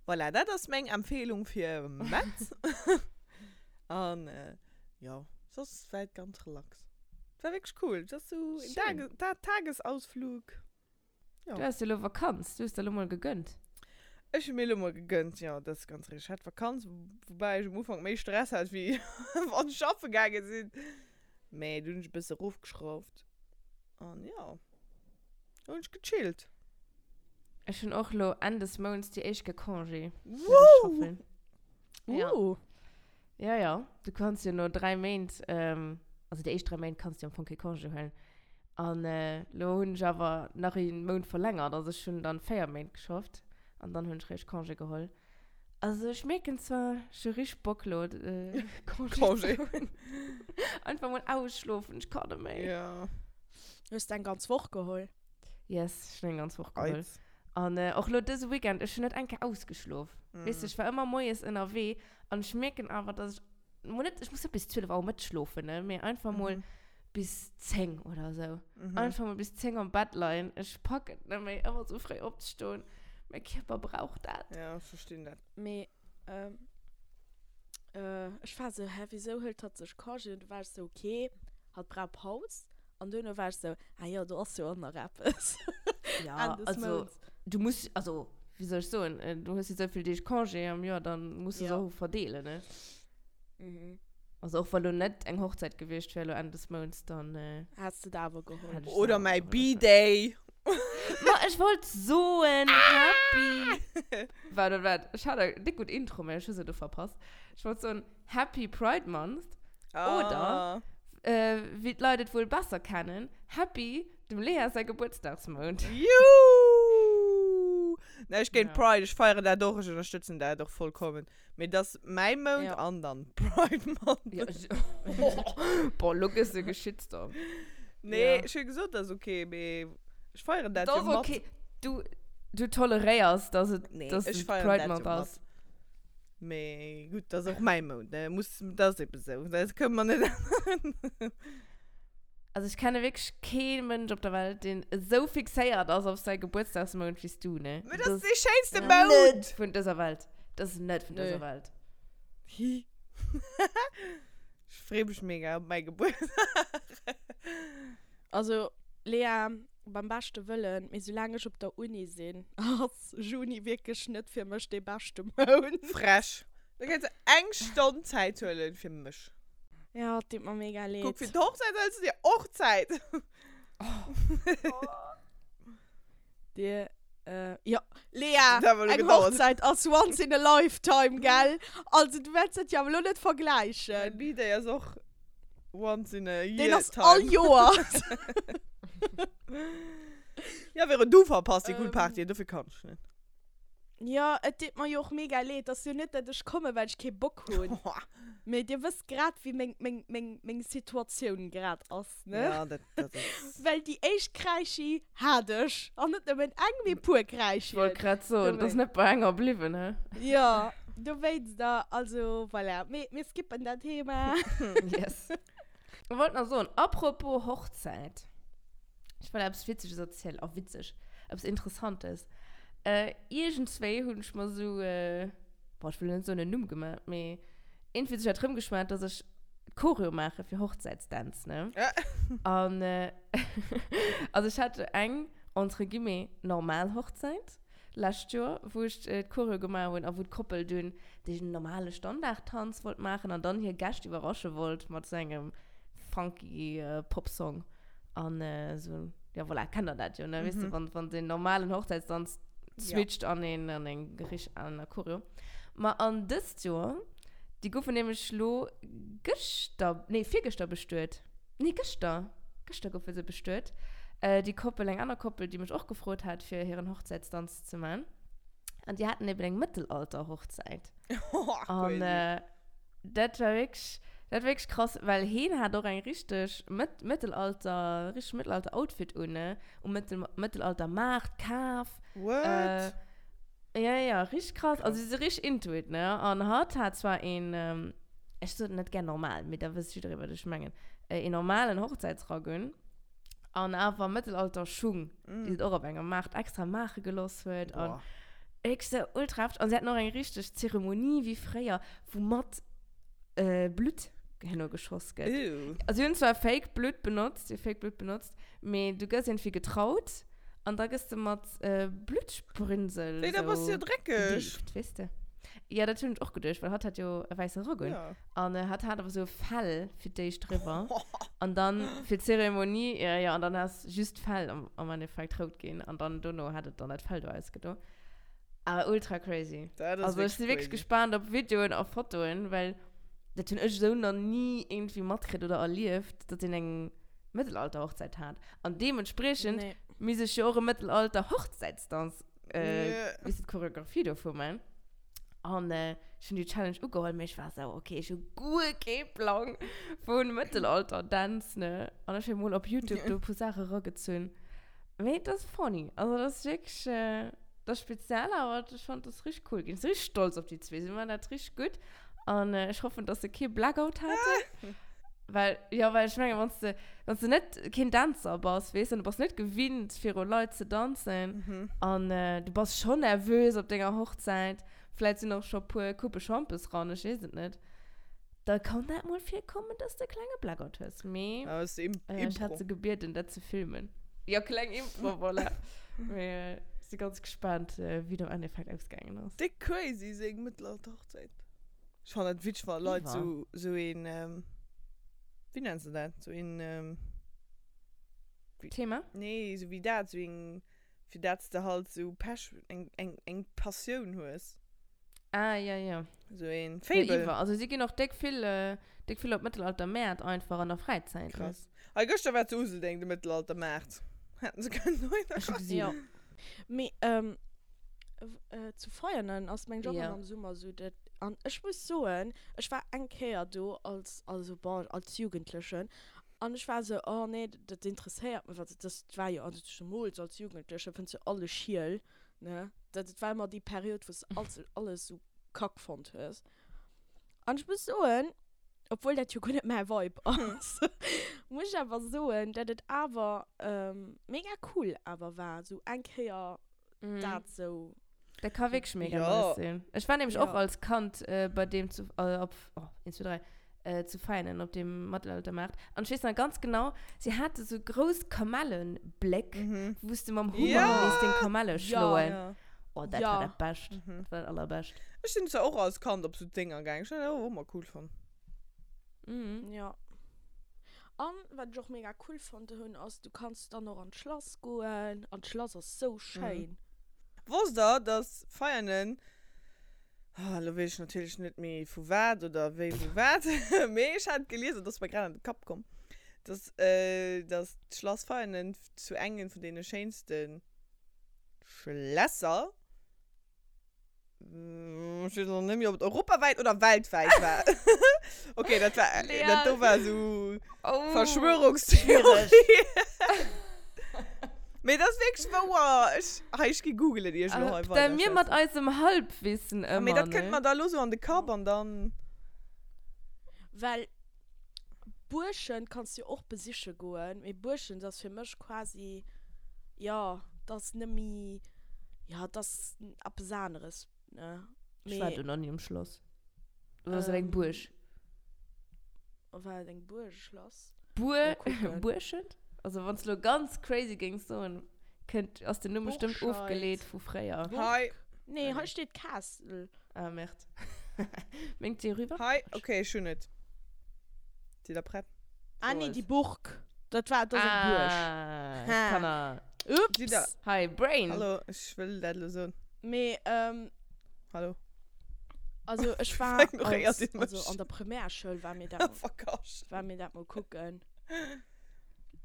voilà, dat ass meng Empfehlung fir Metz. An jo, soss war et ganz relax. Et war wierklech cool. Et ass sou een Schön. Tage, Tagesausflug. Ja. Du has jo lo Vakanz, du hues der lo mol gegönnt. Ech hu mir lo mol gegönnt, jo, dat ass ganz richteg. Ech hat Vakanz, woubäi ech um Ufank méi Stress hat, wéi wann ech schaffe gaange sinn. Mee du hunn ech e bësse erofgeschrauft an jo, do hunn ech gechillt. Ech hunn och lo Enn des Mounts déi éischt Kéier Congé. Wouh! Ja. Ja, ja. Du kanns jo no 3 Méint, also déi éischt 3 Méint kanns du jo am Fong kee Congé huelen. An lo hunn ech awer nach ee Mount verlängert, also ech hunn dann 4 Méint geschafft an dann hunn ech réischt Congé geholl. Also ech mierken zwar, ech hu richteg Bock lo Congé ze hunn. Einfach mol ausschlofen, ech kann net méi. Ja. Hues de eng ganz Woch geholl? Yes, ech hunn eng ganz Woch geholl. An och lo dëse Weekend, ech hunn net eng Kéier ausgeschlof. Weess de, ech war ëmmer moies ënnerwee An ech mierken awer, dass ech mol net, ech muss net bis 12 Auer Mëtteg schlofen, ne, mee einfach mol mhm. bis 10 oder so. Mhm. Einfach mal bis 10 am Bett leien. Ech pack et net méi, ëmmer so fréi opzestoen. Mein Kierper braucht dat. Ja, ech verstinn dat. Mee, ähm, äh, ech war so, hä, wieso hëlt hatt sech Congé? Und du war ech so, okay, hatt brauch Paus. An duerno war ech sou, ah jo, do ass jo och nach eppes. Ja, Enn des also, Mounts. du muss, also, wéi soll ech soen, du hues jo esou vill Deeg Congé am Joer, dann muss du se Ja. och verdeelen, ne? Mhm. Also, och wa lo net eng Hochzäit gewiescht wär lo Enn des Mounts, dann Häss de der awer geholl. hätt ech se Oder awer mäi geholl, B-Day. Ma ech wollt soen, Happy. Waart, waart, waart, ech hat eng déck gutt Intro, mä ech hu se do verpasst. Ech wollt soen, Happy Pride Month. Oder, wéi d'Leit et wuel besser kennen, Happy dem Lea säi Gebuertsdagsmount. Juhu! Näischt géint Ja. Pride, ech feieren dat och, ech ënnerstëtzen dat och vollkommen. Mee et ass mäi Mount Ja. an dann Pride Month. Ja, ech, boah, lo gëss de Geschitstorm. Nee, Ja. ech hu gesot, dat ass okay, mee ech feieren dat Dat jo ass mat. okay. Du, du toleréiers, dass et, Nee, dass ech et feieren Pride dat Month jo mat. ass. Mee gutt, dat ass och mäi Mount, ne? Muss, dat ass eben esou. Dat kënne mer net änneren. Also ech kenne wierklech kee Mënsch op der Welt, deen esou fixéiert ass op säi Gebuertsdagsmount wéi s du, ne? Mee dat ass dee schéinste Ja. Mount! Net vun dëser Welt. Dat ass net vun Nö. dëser Welt. Hi. Ech free mech mega op mäi Gebuertsdag. Also, Lea, Beim beschte Wëllen, mee soulaang ech op der Uni sinn, ass Juni wierklech net fir mech dee beschte Mount. Frech. Da kënns de eng Stonn Zäit huelen fir mech. Ja, et deet mer mega leed. Kuck, fir d'Hochzäit hëls du dir och Zäit. Dir, äh, jo, Lea, Dat huet elo eng gedauert. Hochzäit ass once in a lifetime, gell? Also, du wäerts dat jo awer elo net Mäi vergläichen. B-Day ass och once in a year Deen ass time. all Joer. Ja, Vero, du verpasst déi cool Party, dofir kann ech net. Jo, et deet mer jo och mega leed. Et ass jo net, dat ech kommen, well ech kee Bock hunn. Mee dir wësst grad, wéi meng, meng, meng, meng Situatioun grad ass, ne? Ja, dat, dat ass. Well déi éischt Kräischi hat ech. An net nëmmen eng, mee puer Kräischien. Ech wollt grad soen, et ass net bei enger bliwwen, he? Jo, dowéinst da, also voilà. Mee mir skippen dat Thema. Yes. Ech wollt nach soen, apropos Hochzäit. Ech wollt eppes Witzeges erzielen. Oh, witzeg. Eppes Interessantes. Äh, iergendswéi hunn ech mer sou, äh, boah, ech wëll net soen en Numm gemaach, mee iergendwéi huet sech dat rëmgeschwat, dass ech Choreo maache fir Hochzäitsdänz, ne? An, äh, also ech hat eng, entre guillemets, normal Hochzäit lescht Joer, wou ech d'Choreo gemaach hunn a wou d'Koppel dunn dee normale Standardtanz wollt maachen an dann hir Gäscht iwwerrasche wollt mat sou engem funky Popsong. An esou, ja voilà, kennt der dat jo, ne? Weess de, wann, wann den normalen Hochzäitsdanz switcht an een, an eng richtig aner Choreo. Ma an dëst Joer, déi goufen nämlech lo gëschter, nee, virgëschter bestuet. Nee, gëschter, gëschter goufe se bestuet. Déi Koppel, eng aner Koppel, déi mech och gefrot hat, fir hiren Hochzäitsdanz ze man. An déi haten eben eng Mëttelalter-Hochzäit. An dat war wierklech, dat war wierklech krass, well heen hat och eng richteg Mëtt, Mëttelalter, richteg Mëttelalter-Outfit un, ne? Um Mëttel, Mëttelalter-Maart kaf. What? Ja, ja, richteg krass. Also si si richteg into it, ne? An hatt hat zwar een, ech soen net gär normal, mee da wësst jidderee, wat ech mengen, een normalen Hochzäitsrack un. An awer Mëttelalter-Schung, déi se och op engem Maart extra maache geloss huet. An wierklech sou ultra hefteg. An si haten och eng richteg Zeremonie wéi fréier, wou mat Blutt herno geschoss gëtt. Also si hunn zwar Fake Blutt benotzt, si hu Fake Blutt benotzt, mee du gëss iergendwéi getraut an da gëss de mat Bluttsprünsel Wéi, da bass du jo dreckeg. gedeeft, weess de. Jo, dat hunn ech och geduecht, well hatt hat jo e wäisse Rock un. An hatt hat awer sou e Fell fir d'éischt driwwer. An dann fir d'Zeremonie, jo, jo, an dann ass just d'Fell am, am Endeffekt rout ginn. An dann dono hat et dann dat Fell do ausgedo. Awer ultra crazy. Dat ass Also ech si wierklech crazy. gespaant op Videoen a Fotoen, well dat hunn ech esou nach ni iergendwéi matkritt oder erlieft, datt een eng Mëttelalter-Hochzäit hat. An deementspriechend Nee. misst ech jo och e Mëttelalter-Hochzäitsdanz, äh, Nee. weess de, d'Choreographie dovu man. An ech hunn déi Challenge ugeholl, mee ech war esou, ok, ech hu guer kee Plang vu Mëttelalter-Dänz, ne? An ech hu mol op Youtube do e puer Saache eragezunn. Mee et ass funny. Also et ass wierklech, et ass speziell, awer ech fannen, et ass richteg cool ginn. Ech si richteg stolz op déi zwee. Si maachen dat richteg gutt. An ech hoffen, dass se kee Blackout haten. Well, jo, well ech mengen, wann s de, wann s de net keen Dänzer bass, weess, an du bass net gewinnt, viru Leit ze danzen, an du bass schonn nervös op denger Hochzäit, vläit sinn och scho puer Coupe Schampes ran, ech weess et net, da kann dat mol virkommen, dass de e klenge Blackout hues. Mee ech hat se gebieden, dat ze filmen. Jo, kleng Impro, voilà. Mee ech si ganz gespaant, wéi et am Endeffekt ausgaangen ass. Déck crazy, seng Mëttelalter-Hochzäit. Ech fannen dat witzeg, wa Leit sou, sou een, wéi nenns de dat, sou een, Thema? Nee, sou wéi dat, sou een, fir dat s de halt sou Pech, eng, eng, eng Passioun hues. Ah, ja, ja. Sou een Faible. Ja, iwwer. Also si ginn och déck vill, déck vill op Mëttelaltermäert einfach an der Fräizäit. Krass. Hei gëschter war zu Useldeng de Mëttelaltermaart. Hätten se kënnen dohinner Ech hu goen. gesinn. Jo. Mee, zu Veianen ass meng Job am Summer sou dat an ech muss soen ech war eng Kéier do als also bon als Jugendlechen an ech war sou oh nee dat interesséiert mech also dat war jo also zemools als Jugendleche fënns du alles schiel ne dat war ëmmer déi Period wou s de alles alles sou kack fonnt hues an ech muss soen obwuel dat jo guer net mäi Vibe ass muss ech awer soen dat et awer mega cool awer war sou eng Kéier dat sou. Dat ka wierklech mega Ja. nice sinn. Ech war nämlech och Ja. als Kand äh, bei deem zu, äh, op, oh, 1, 2, 3, äh, zu Veinen op dem Mittelaltermarkt. An ech weess nach ganz genau, si hate sou grouss Kamellenbléck, Mhm. wou s de mam Hummer Ja. misst den Kamelle Ja. schloen. Ja. Oh, dat Ja. war dat Bescht. Mhm. Dat war dat Allerbescht. Ech sinn zwar och als Kand op sou Dénger gaangen. Ech hunn dat och ëmmer cool fonnt. Mhm. Ja. An wat ech och mega cool fonnt hunn ass, du kanns dann och an d'Schlass goen an d'Schlass ass sou schéin. Wosst der, dass Veianen, ah, elo weess ech natierlech net méi vu wat oder wéi wou wat, mee ech hat et gelies an et ass mer grad an de Kapp komm, Dass, äh, dass d'Schlass Veianen zu engem vun deene schéinste Schlässer, ech weess och net méi, ob et europawäit oder weltwäit war. Okay, dat war, Lea. dat do war esou Oh, Verschwörungstheorie. schwiereg. Mee dat ass wierklech wouer. Ech, hei, ech gi googelen, ier ech elo hei Äh, da mir mat weiderschwätzen. eisem Halbwissen Ah, mee ëmmer, dat kënnt ne? mer da elo sou an de Kapp an dann. Well Buerschent kanns du jo och besiche goen, mee Buerschent ass fir mech quasi, jo, dat ass net méi, jo, dat ass eppes aneres, ne? Ech war Mee. do nach ni um Schlass. Oder ass dat eng Buerg? War et eng Buerg, e Schlass? Buer, Mol kucken. Buerschent? Also wann s du lo ganz crazy géings soen, kënnt, ass den Numm bestëmmt Burscheid. ofgeleet vu fréier. Hei. Nee, hei steet Castle. Ah, merde. Mengt dir rüber? Hei, okay, ech hunn et. Sidd der prett? Ah nee, Soes. déi Burg. Dat war, dat ass eng Buerg. Ah, Ha. Kanner. Sidd der. Ups. Hi, Brain. Hallo, ech wëll dat elo soen. Mee, ähm, Hallo. also ech war Ignoréiert als, Dir mech. also an der Primärschoul war mir dat mol, Verkasch. war mir dat mol kucken.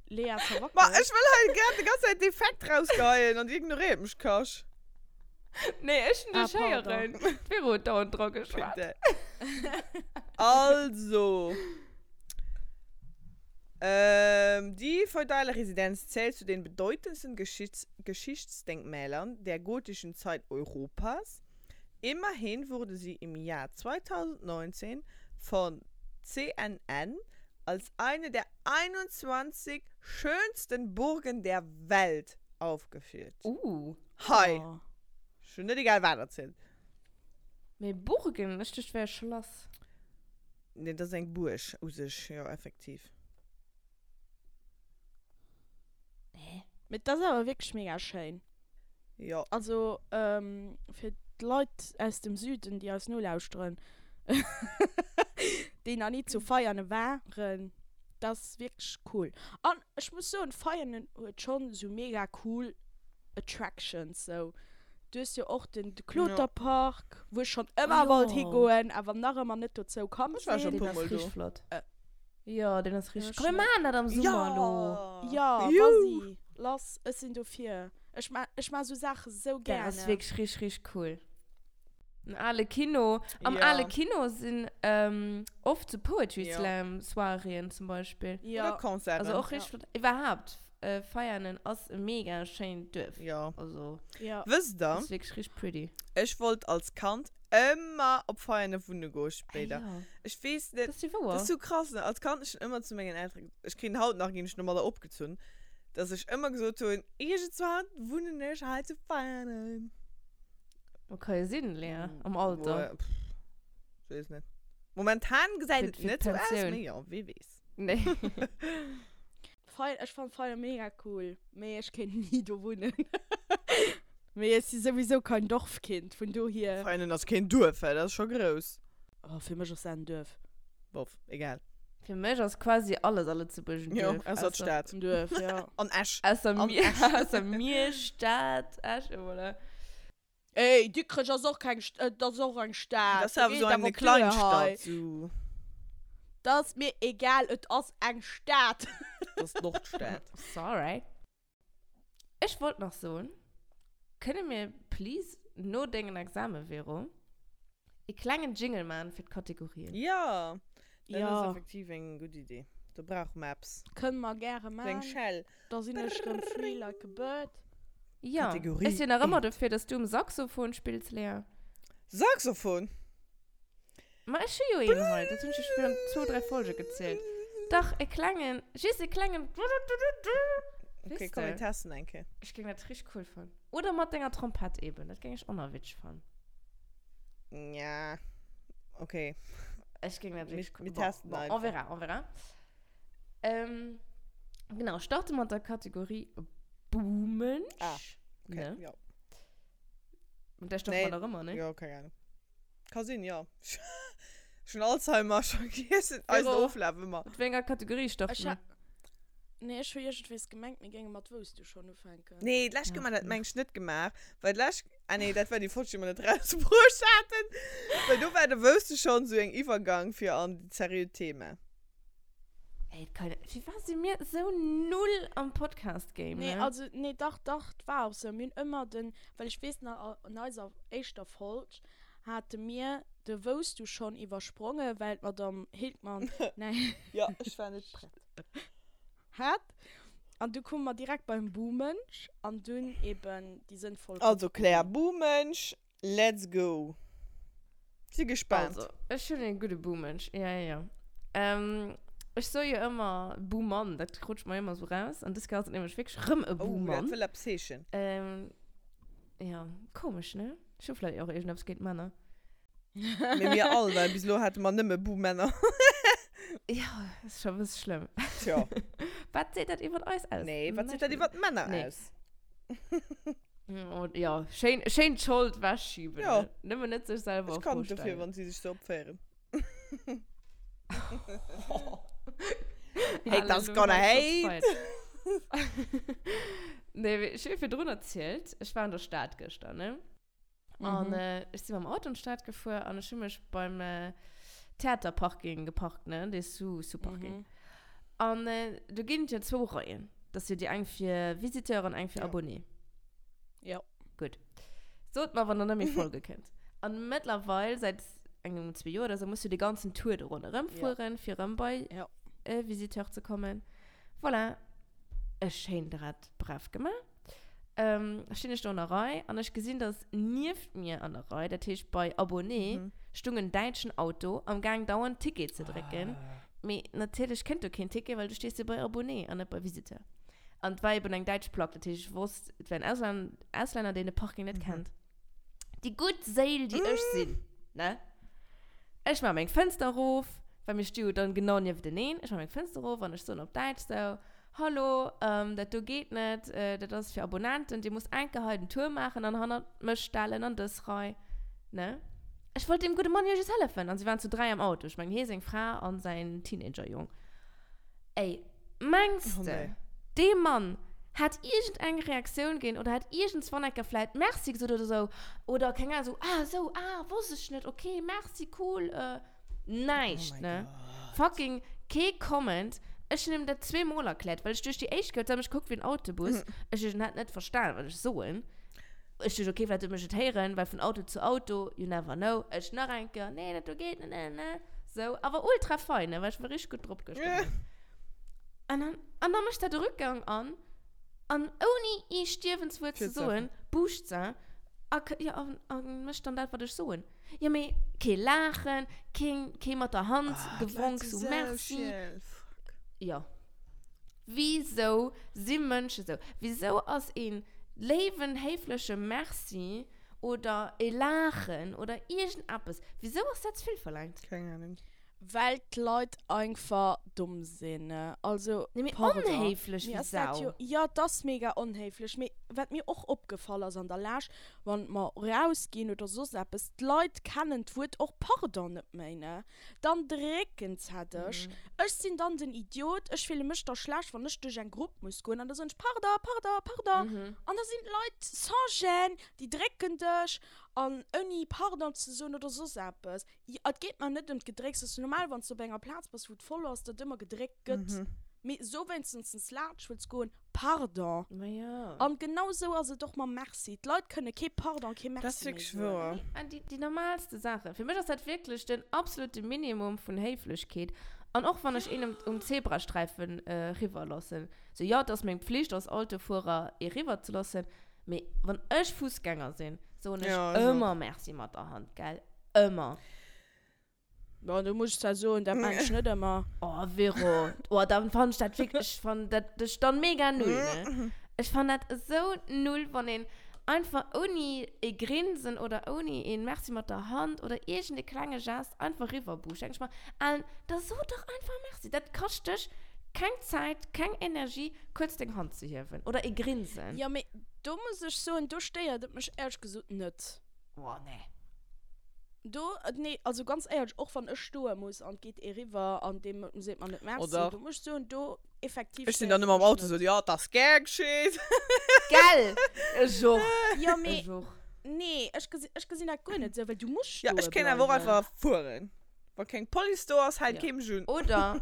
Lea Ma verwackelt. ech wëll hei grad de ganz Zäit Defekt rausgeheien an dir ignoréiert mech, Kasch. Nee, ech hun Ah, dech pardon. héieren. D'Vero huet dauernd dra geschwat. Bitte. Also. Ähm, die feudale Residenz zählt zu den bedeutendsten Geschichts Geschichtsdenkmälern der gotischen Zeit Europas. Immerhin wurde sie im Jahr 2019 von CNN als eine der 21 schönsten Burgen der Welt aufgeführt. Uh. Hei! Oh. Ech hunn net egal wat erzielt. Mee Burgen? Ech duecht, wär e Schlass. Nee, dat ass eng Buerg u sech, jo, effektiv. Hä? Mee dat ass awer wierklech mega schéin. Jo. Also, fir d'Leit aus dem Süden, déi eis nolauschteren, déi nach ni zu Veianen waren, dat ass wierklech cool. An ech muss soen, Veianen huet schonn esou mega cool Attractions sou. Du hues jo och den Kloterpark, wou ech schonn ëmmer wollt higoen, awer nach ëmmer net dozou komm Ech war sinn. scho Deen puer ass mol do. richteg flott. Jo, deen ass richteg. Ech Komm, mir net. maachen dat am Summer elo. Jo, vas-y, lass, ech sinn dofir. Ech ma, ech ma sou Saache sou Dat ass gerne. wierklech richteg, richteg cool. Den ale Kino. Am Ja. ale Kino sinn oft sou Poetry Ja. Slam Soiréeën zum Beispill. Ja. Oder Concerten. Also och Ja. richteg flott. Iwwerhaapt, Veianen ass e mega schéint Duerf. Ja. Also, Ja. Wësst der, ass wierklech richteg pretty. ech wollt als Kand ëmmer op Veianen wunne goe spéider. Ah, ja. Ech weess net. Dat ass jo wouer. Dat ass sou krass, ne? Als Kand, ech hunn ëmmer zu mengen Elteren, ech kritt haut nach, ginn ech domadder opgezunn, dass ech ëmmer gesot hunn, iergendzwann wunnen ech hei zu Veianen. Ma ka jo sinn, Lea, am Alter. Boah, pff, ech weess net. Momentan gesäit Fir- et fir net sou aus, d'Pensioun. mee jo, wee weess. Nee. Fei, ech fann Veianen mega cool, mee ech kéint ni do wunnen. Mee ech si souwisou kein Dorfkind, vun dohier. Veianen ass keen Duerf, dat ass scho grouss. Oh, fir mech ass dat en Duerf. Bof, egal. Fir mech ass quasi alles a Lëtzebuerg en Jo, Duerf. ausser d'Stad. En Duerf, ja. An Esch. Ausser An mir, Esch. ausser mir, Stad, Esch, et voilà. Ey, Dikrech ass och keng St-, et ass och eng Stad. Dat ass awer Geet esou awer eng op d'Uer hei. Kleinstadt, sou. Dat ass mir egal, et ass eng Stad. Dat ass d'Nordstad. Sorry. Ech wollt nach soen, kënne mir please no dengen Examen, Vero, e klengen Jingle man fir d'Kategorien? Jo, dat Ja. ass effektiv eng gutt Idee. Do brauche mer eppes. Kënne mer gäre Sou eng man. Schell. Da sinn ech rëm free like a bird. Ja. Kategorie Ech sinn nach ëmmer dofir, dass du um Saxophon spills, Lea. Saxophon? Ma ech hu jo een hei, dat hunn ech jo virun zwou, dräi Folge gezielt. Dach, e klengen, just e klengen Okay, Weess komm, de? mir testen eng Kéier. Ech géing dat richteg cool fannen. Oder mat denger Trompett eben, dat géing ech och nach witzeg fannen. Ja, okay. Ech géing dat Mir, wierklech cool mir bon, testen bon, on einfach. verra, on verra. Ähm, genau, starte mat der Kategorie Buhmensch. Ah, okay, Ne? ja. Mat där starte Nee, mer nach ëmmer, ne? jo, keng Ahnung. Ka sinn, jo. Ech hunn Alzheimer, ech vergiessen eisen Vero, Oflaf ëmmer. mat wéi enger Kategorie Ech starte ha mer? Nee, ech hu iergendwees gemengt, mir géinge mat Wouss du schonn ufänken. Nee, d'lescht Kéier Ach, hu mer dat nee. mengt ech net gemaach, well d'lescht, ah nee, dat war déi Folg, déi mer net rausbruecht haten, well do war de Wouss du schonn esou eng Iwwergang fir an dat seriöt Thema. Ey, et kann, firwat si mir sou null am Podcast-Game, Nee, ne? also, nee, dach, dach, 't war och sou. Mir hunn ëmmer den, well ech weess nach, an eiser éischter Folg hate mir de Wousst du schon iwwersprongen, well d'Madame Hildmann näischt. Jo, ech war net prett. Hat. An du koume mer direkt beim Buhmënsch an dunn eben déi sënnvoll Also Claire, Kategorien. Buhmënsch, let's go! Si gespaant. Also, ech hunn e gudde Buhmënsch, ja, ja, ja. Ähm, ech soe jo ëmmer Buhmann, dat rutscht mer ëmmer sou raus. An dës Kéier ass et nämlech wierklech rëm e Oh, dat Buhmann. wëll eppes heeschen. Ähm, ja, komesch, ne? Ech hu vläicht och iergendeppes géint Männer. Mee mir all, well bis elo hate mer nëmme Buhmänner. Ja, ass scho e bësse schlëmm. Tjo. Wat seet dat iwwert eis aus? Nee, wat seet Näischt dat iwwert d'Männer Nee. aus? Oh, ja, schéin, schéin d'Schold wechschieben. Ja. Ne? Nëmmen net sech selwer Ech a kann Fro net dofir, stellen. wann si sech sou opféieren. Haters Haters gonna hate. Nee, mee ech hu jo virdrun erzielt, ech war an der Stad gëschter, ne? An Mhm. äh, ech si mam Auto an d'Stad gefuer an ech hu mech beim äh, Theaterparking geparkt, ne? Dee Sous, Sous-Parking. Mhm. An äh, do ginn et jo zwou Reien. Dat ass jo déi eng fir Visiteur an eng fir Ja. Abonné. Ja. Gutt. Sot mer, wann der net méi folge kënnt. An mëttlerweil, säit engem, zwee Joer oder sou, muss du de ganzen Tour do ronderëm Ja. fueren, fir erëm bei Ja. äh, Visiteur ze kommen. Voilà. Ech schéin dat brav gemaach. Ähm, stinn ech do an der Rei an ech gesinn, dass nieft mir an der Rei, dat heescht bei Abonné, Mhm. stung en däitschen Auto am Gaang dauernd Ticket ze drécken. Mee natierlech kënnt do keen Ticket, well du stees jo bei Abonné an net bei Visiteur. An et war eben eng däitsch Plack, dat heescht ech wosst, et wär en Auslan Auslänner, deen de Parking net Mhm. kennt. Déi gutt Séil, déi ech sinn, ne? Ech maache meng Fënster erof, well mir sti jo dann genau niefteneen. Ech maache meng Fënster erof an ech soen op Däitsch sou, Hallo, dat do geet net, dat ass fir Abonnenten, dir musst enke hei den Tour maachen an hannert mech stellen an dës Rei, ne? Ech wollt deem gudde Mann jo just hëllefen an si waren zu 3 am Auto, ech mengen hie, seng Fra an säin Teenager-Jong. Ey, mengs de, dee Mann hätt iergendeng Reaktioun ginn oder hätt iergendswann enke vläit Merci gesot oder sou oder keng Ahnung, sou, ah sou, ah, wosst ech net, okay, merci, cool, Näischt, Oh my ne? God. Fucking kee Comment. Ech hunn him dat zweemol erkläert, well ech duerch déi éischt gehört, huet mech gekuckt wéi en Autobus. Ech duecht, en hätt net verstan, wat ech soen. Ech duecht, okay, vläicht huet mech et héieren, well vun Auto zu Auto, you never know. Ech nach eng Kéier, nee, dat do geet net, ne, ne. Sou, awer ultra fein, ne, well ech war richteg gutt drop gëschter Moien. An dann, an dann mécht dat de Rückgang an, an ouni ee Stierwenswuert ze Fir ze soen, buuscht se a, ja, an, a mécht dann dat, wat ech soen. Jo mee kee Laachen, keen kee mat der Hand Ah, d'Leit gewonk si sou sou merci. schiel, fuck. Jo. Wisou si Mënsche sou? Wisou ass een léiwen, héifleche Merci oder e Laachen oder iergendeppes, wisou ass dat ze vill verlaangt? Keng Ahnung. Well d'Leit einfach domm sinn. Also, Nee, mee pardon. onhéiflech Mir wéi ass dat Sau. jo, jo, et ass mega onhéiflech. Mee wat mir och opgefall ass an der Lescht, wann mer rausginn oder soss eppes, d'Leit kennen d'Wuert och pardon net méi, ne? Dann drécken se dech. Ech sinn dann den Idiot, ech fille mech da schlecht, wann ech duerch eng Grupp muss goen an da soen ech pardon, pardon, pardon. An da sinn d'Leit sans gêne, déi drécken dech an ouni pardon ze soen oder soss eppes. Et geet mer net ëm d'Gedrécks. Et ass normal, wann s de op enger Plaz bass, wou et voll ass, datt ëmmer gedréckt gëtt. Mee so wéinstens laanscht wëlls goen, pardon. Ma jo. An genau sou ass et och mam Merci. D'Leit kënne kee Pardon, kee Dat ass Merci méi wierklech soen. wouer. Nee, an déi, déi normalste Saachen. Fir mech ass dat wierklech den absolute Minimum vun Héiflechkeet. An och wann ech een um, um Zebrasträifen eriwwer loossen. Sou, jo, et ass meng Pflicht als Autofuerer, ee riwwer ze loossen. Mee wann ech Fussgänger sinn, soen ech Ja, ech och. ëmmer Merci mat der Hand, gell? Ëmmer. Bon, do muss ech zwar soen, dat maan ech net ëmmer. Oh, Vero. Oh, dann fann ech dat wierklech, ech fann dat dech dann mega null, ne? Ech fann dat esou null, wann een einfach ouni e Grinsen oder ouni een Merci mat der Hand oder iergend e klenge Gest einfach riwwerbuuscht. Denk ech mer, Alen, da so dach einfach Merci. Dat kascht dech keng Zäit, keng Energie, kuerz deng Hand ze hiewen oder e Grinsen. Jo, mee do muss ech soen, do stéiert et mech éierlech gesot net. Oh, nee. Do, nee, also ganz éierlech, och wann ech stoe muss an et geet ee riwwer an deem seet mer net Merci, Oder? do muss ech soen, do effektiv Ech sinn stéiert dann et ëmmer am mech Auto net. sou, jo, 't ass gär geschitt. Gell? Ech och. Jo, mee Ech och. nee, ech gesi, ech gesinn dat guer net esou, well du muss Ja, stoe ech kéint awer och bleiwen. einfach fueren. Wa keng Police do ass, hält Ja. kee mech un. Oder?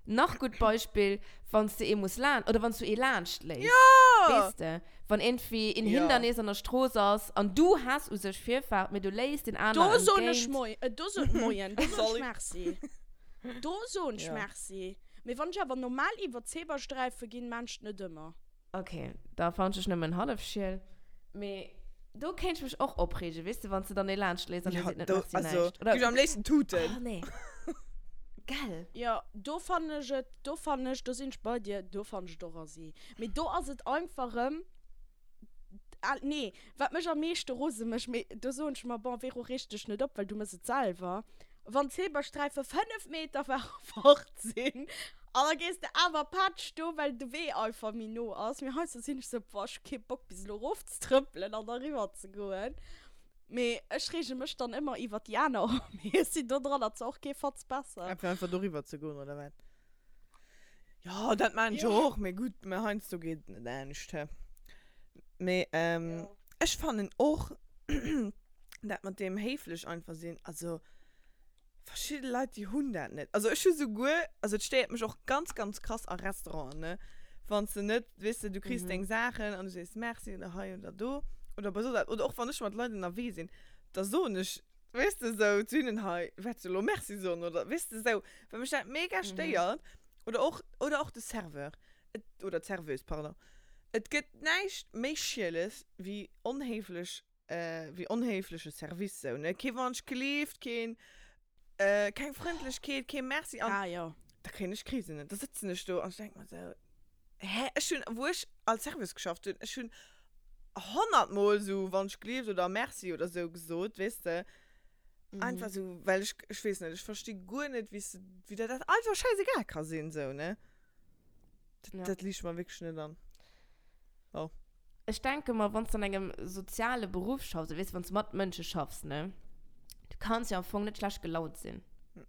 Nach gutt Beispill, wann s de ee muss laan, oder wann s du ee laanscht léiss. Jo! Weess de, wann iergendwéi een Jo. Hindernis an der Strooss ass an du häss u sech Virfahrt, mee du léiss deen Do aner soen ech entgéint. Moi, äh, do soen, Moien, do soen ech Sorry. Merci. Do soen ech Ja. Merci. Mee wann ech awer normal iwwer d'Zebrasträife ginn, maan ech et net ëmmer. Ok, da fannen ech nëmmen hallef schiel. Mee do kéint ech mech och opreegen, weess de, wann s de dann ee laanscht léiss an dee Ja, seet net do, Merci also, näischt. Oder, gi ech am léifsten tuten. oh nee, gell? Jo, do fannen ech et, do fannen ech, do sinn ech bei dir, do fannen ech et och assi. Mee do ass et einfach erëm, ah nee, wat mech am meeschte rose mécht, mee do soen ech mer, bon Vero, reeg dech net op, well du mëss et selwer, wann d'Zebrasträife 5 Meter fort sinn an da gees de awer patsch do, well de Wee einfach méi no ass. Mee heiansdo sinn ech sou, boah, ech hu kee Bock bis elo erofzetrëppelen an da riwwer ze goen. Mee ech reege mech dann ëmmer iwwer déi aner op, mee ech sinn dodranner zwar och kee Fatz besser. Einfach einfach doriwwer ze goen, oder wat? Jo, dat maan ech Jo. och, mee gutt, mee heiansdo geet et net anescht, he. Mee ech fannen och, dat mat deem héiflech einfach sinn, also verschidde Leit, déi hunn dat net. Also ech hu souguer, also et stéiert mech och ganz, ganz krass a Restauranten, ne, wann s de net, weess de, du kriss deng Saachen an du sees Merci oder hei oder do oder bei soss eppes, oder och wann ech mat Leit ënnerwee sinn, da soen ech, weess de, sou zu hinnen, hei, wäerts du elo Merci soen oder, weess de, sou, well mech dat mega stéiert. Oder och, oder och de Serveur, et, oder d'Serveuse, pardon. Et gëtt näischt méi Schieles wéi onhéiflech wéi onhéifleche Service sou ne, kee Wonsch gleeft, keen keng Frëndlechkeet, kee Merci an Ah jo. da kréien ech Krisen ne, da sëtzen ech do an ech denk mer sou, hä, ech hunn wou ech als Serveuse geschafft hunn, ech hunn honnertmol sou Wonsch gleeft oder Merci oder sou gesot, weess de, einfach sou well ech, ech weess net, ech versti guer net wéi s de, wéi der dat einfach schäisegal ka sinn sou ne, dat dat liicht mer wierklech net an. Oh. Ech denke mer, wann s de an engem soziale Beruff schaffs, weess de, wann s de mat Mënsche schaffs, ne, du kanns jo am Fong net schlecht gelaunt sinn.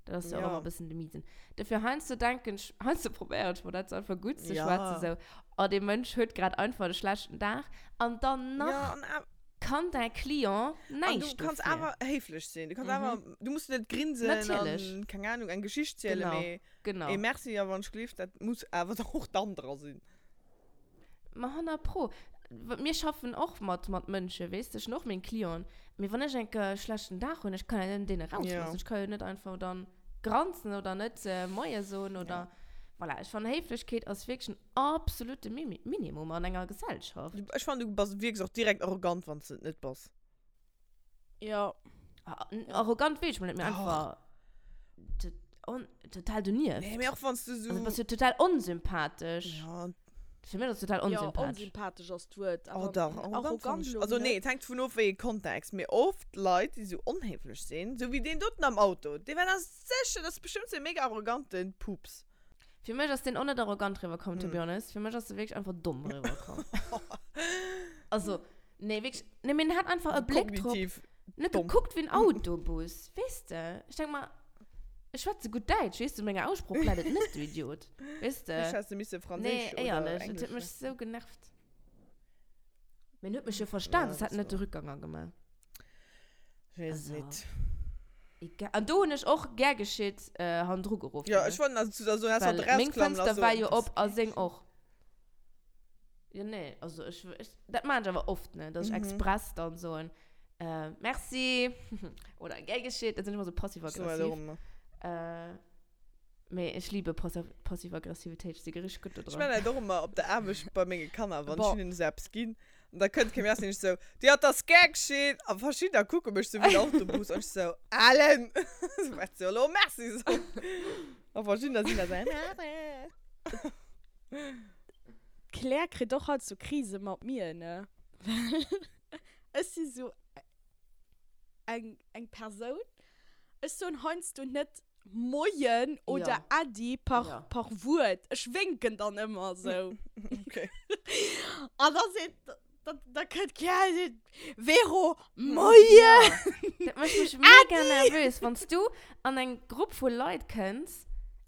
Dat ass jo och Ja. ëmmer e bëssen de Miesen. Dofir heiansdo denken ech, heiansdo probéieren ech mer dat einfach gutt ze Ja. schwätzen, sou, oh, dee Mënsch huet grad einfach e schlechten Dag. An dann nach Ja, an awer. kann däi Client An näischt du kanns dofir. awer héiflech sinn. Du kanns awer, du muss net grinsen Natierlech. an, keng Ahnung, eng Geschicht zielen, Genau, mee genau. ee Merci a wann ech gleef, dat muss awer och dann dra sinn. Ma 100 pro. Mir schaffen och mat, mat Mënschen, weess de, ech hunn och meng Clienten. Mee wann ech enke schlechten Dag hunn, ech kann jo net deene rausloossen. Ech ka jo net einfach dann granzen oder net Moie soen oder voilà. Ech fannen, Héiflechkeet ass wierklech en absolute Minimum an enger Gesellschaft. Ech fannen, du bass, wierks och direkt arrogant, wann s de et net bass. Ja. Arrogant weess ech mol net, mee einfach total donieft. Nee, mee och wann s du sou. Also bass du total onsympathesch. Ja. Fir mech ass total onsympathesch. Ja, onsympathesch ass d'Wuert. Oh dach, arrogant fannen ech. Also nee, et hänkt dovun of, wéi ee Kontext. Mee oft Leit, déi sou onhéiflech sinn, sou wéi deen doten am Auto, dee war da sécher, dat ass bestëmmt sou e mega arrogante Pups. Fir mech ass deen och net arrogant riwwerkomm, to be honest. Fir mech ass e wierklech einfach domm riwwerkomm. Also, nee, wierklech, nee, mee en hat einfach e Bléck drop. Kognitiv Net domm. gekuckt wéi en Autobus, weess de? Ech denk mer, ech schwätze gutt Däitsch, weess de, u menger Aussproch läit et net, du Idiot. Weess de? Vläicht häss de misse Nee, Franséisch oder éierlech, et Englesch huet mech schwätzen. sou genervt. Mee en huet mech jo verstan, Ja, soss hätt dat en net de war. Rückganger gemaach. Ech weess et Also, net. egal. An do hunn ech och gär geschitt hannendru geruff, Ja, ne? ech wollt nach zu der soen, häss hatt Well meng rausklammen Fënster lass, war so, jo das op a seng och. Jo, nee, also ech, ech, dat maan ech awer oft, ne, dass ech express dann soen, äh, merci, oder gär geschitt, da sinn ech ëmmer sou So, passiv-aggressiv. warum? Äh, mee ech liebe Passiv-Aggressivitéit, ech si richteg gutt do Ech dran. maan dat och ëmmer op der Aarbecht bei menge Kanner, wann ech Bon. hinnen esou eppes ginn, an da kënnt kee méi, sinn ech sou, Dir hat das gär geschitt, a verschiddener kucke mech sou wéi den Autobus, an ech sou, Alen, sou, wat soll elo merci soen? A verschiddener sinn da sou, Merci. D'Claire kritt och halt sou Krise mat mir, ne? Well ech si sou eng, eng Persoun, ech soen heiansdo net Moien oder Ja. Äddi par, Ja. par Wuert. Ech wénken dann ëmmer sou. Okay. An da seet, da, da kënnt d'Claire a seet, Vero, Moien! Dat mécht mech mega nervös, wann s du an eng Grupp vu Leit kënns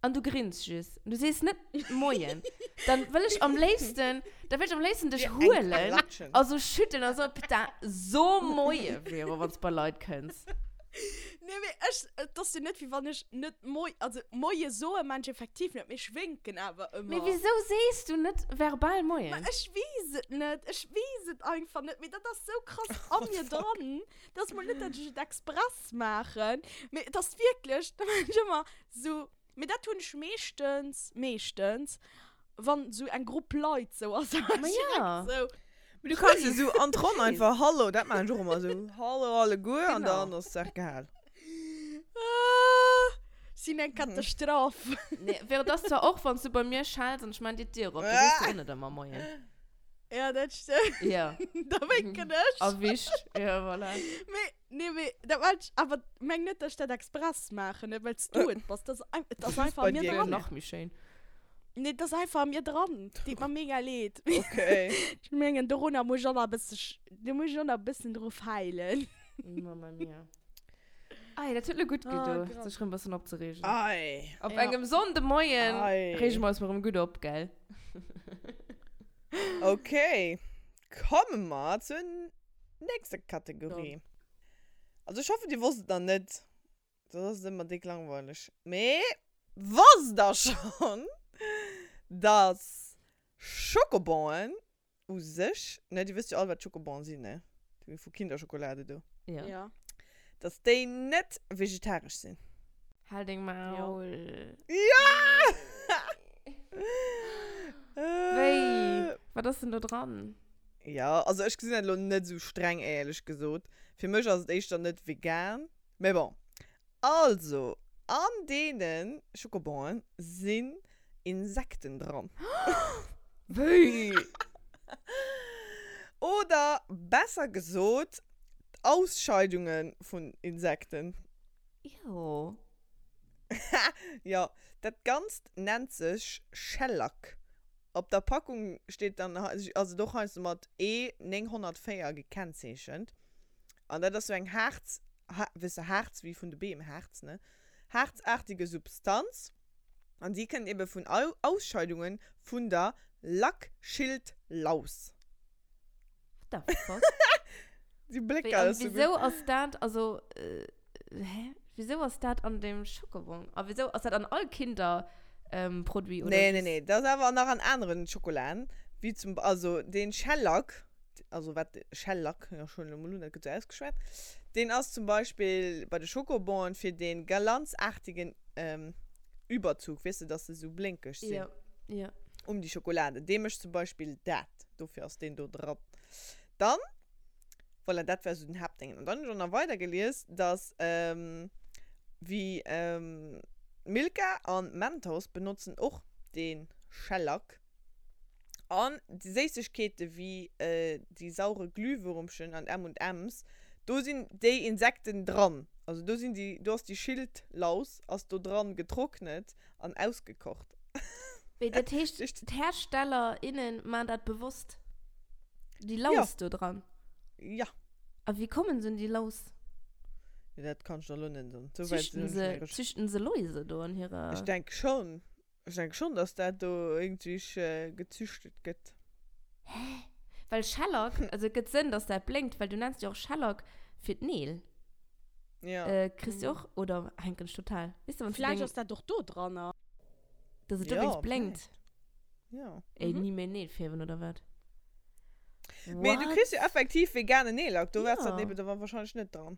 an du grins just, du sees net Moien, dann wëll ech am léifsten, da wëll ech am léifsten dech huelen a sou schüttelen a soen, Putain, so Moie, Vero, wann s bei Leit kënns. Nee, mee ech. ech, et ass jo net, wéi wann ech net Moi, also Moie soe maan ech effektiv net, mee ech wénken awer ëmmer. Mee wisou sees du net verbal Moien? Ma ech weess et net, ech weess et einfach net, mee dat ass sou krass a mir dran. Dat ass mol net, dat ech et express maachen, mee et ass wierklech, da maan ech ëmmer sou, mee dat hunn ech meeschtens, meeschtens, wann sou eng Grupp Leit sou ass, da maan ech direkt sou. Mee du kanns jo sou an d'Ronn einfach Hallo, dat maan ech och ëmmer sou, Hallo alleguer an dann ass d'Saach gehal. Ah, sinn eng Katastroph. Nee, wär et ass zwar och, wann s du bei mir schells an ech maan dir d'Dier op, da sees du och net ëmmer Moien. Ja, dat stëmmt. Ja. Da wénken ech. Erwischt. Ja, voilà. Mee, nee, mee dat war ech, awer meng net, dass ech dat express maachen, net well s du et bass. Dat ass ein, et ass einfach bei a mir dir dran. Nach méi schéin. Nee, et ass einfach a mir dran. Deet mer mega leed. Okay. Ech mengen, dorunner muss ech och nach e bësse, do muss ech och nach e bëssen dru feilen. Mamma mia. Ei, dat huet lo gutt Oh gedo, Gott. sech rëm bëssen opzereegen. Ei. Op Ja. engem Sonndemoien Ei. reege mer eis mol rëm gutt op, gell? Okay, komme mer zur nächster Kategorie. Also ech hoffen, dir wosst et nach net, soss ass et ëmmer déck langweileg. Mee wosst der schonn, dass Schokobonen u sech, ne, dir wësst jo all wat Schokobonen sinn, ne? Déi vu Kinderschokolade do. Ja. Ja. Dass déi net vegetaresch sinn. Hal deng Maul. Ja! Wéi? Wat ass denn do dran? Ja, also ech gesinn dat elo net esou streng, éierlech gesot. Fir mech ass et éischter net vegan, mä bon. Also, an deene Schokobonen sinn Insekten dran. Wéi? Oder besser gesot, d'Ausscheidunge vun Insekten. Ew. Jo, dat Ganzt nennt sech Shellac. Op der Packung steet dann, ass et och heiansdo mat E 904 gekennzeechent. An dat ass sou eng Haarz, weess de, Haarz wéi vun de Beem, Haarz, ne? Haarzaartige Substanz. An déi kënnt ebe vun Ausscheidunge vun der Lackschildlaus. What the fuck? Déi Wéi, Blécker an ass sou gutt. wieso ass dat, also, äh, hä? Wieso ass dat an dem Schokobon? A wieso ass dat an all Kinder, ähm, Produit oder Nee, nee, just? nee, dat ass awer nach an aneren Schokolaen, wéi zum, also deen Shellac, also wat Shellac, jo schon elo mol un, dat gëtt sou ausgeschwat, deen ass zum Beispill bei de Schokobonen fir dee glanzartigen, ähm, Überzug, weess de, dass se sou blénkeg sinn. Ja, ja. Um déi Schokolade. Dee mécht zum Beispill dat. Dofir ass deen do dran. Dann, voilà, dat war sou den Haaptdéngen. An dann hunn ech och nach weider gelies, dass wéi Milka an Mentos benotzen och dee Shellac. An déi Séissegkeete wéi déi saure Glühwürmchen an M und M's, do sinn déi Insekten dran. Also do sinn déi, do ass déi Schildlaus ass do dran getrocknet an ausgekocht. Wéi, dat heescht, d'Hersteller, innen maan dat bewosst? Déi Laus do dran? Ja. A wéi kommen se un déi Laus? Jo, dat kann ech der elo net soen. Sou wäit Züchten sinn ech se, net recherchéiert. züchten se Läuse do an hirer. Ech denk schon. Ech denke schon, dass dat do irgendwie gezüchtet gëtt. Hä? Well Shellac, also et gëtt Sënn, dass dat blénkt, well du nenns jo och Shellac fir d'Neel. Ja. Äh, kriss du och, oder hänken ech total? Weess de, wann s du Vläicht deng, ass dat och do dranner. dass et Ja, dowéinst blénkt. Ja. Ey, ni méi Neel fierwen, oder wat? Mee du What? kriss jo effektiv veganen Neellack, do wär's dat Ja. eben da wahrscheinlech net dran.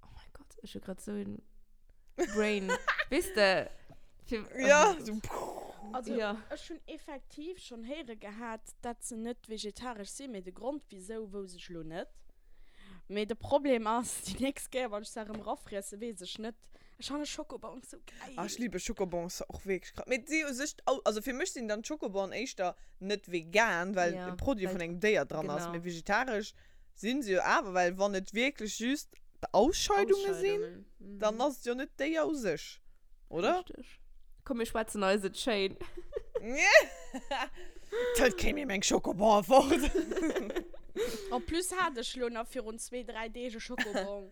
Oh mein Gott, ech hu grad sou en Brain. Weess de, fir. Oh Ja, mein so Gott. Also, Ja. ech hunn effektiv schonn héiere gehat, dat se net vegetaresch sinn, mee de Grond wisou wouss ech lo net. Mee de Problem ass, déi nächst Kéier wann ech se erëm erafriessen, weess ech net. Ech fanne Schokobons sou geil. Ah, ech liebe Schokobons och wierklech krass. Mee si u sech, also fir mech sinn dann d'Schokobonen éischter net vegan, well Ja, e Produit well vun engem Déier dran ass, genau. mee vegetaresch Sinn se jo awer, well wann et wierklech just d'Ausscheidunge sinn, dann ass et jo net d'Déier u sech, oder? Richteg. Komm, mir schwätzen eis et schéin. Et hëlt kee méi meng Schokobon fort. En plus hat ech lo nach virun zwee, dräi Deeg e Schokobon.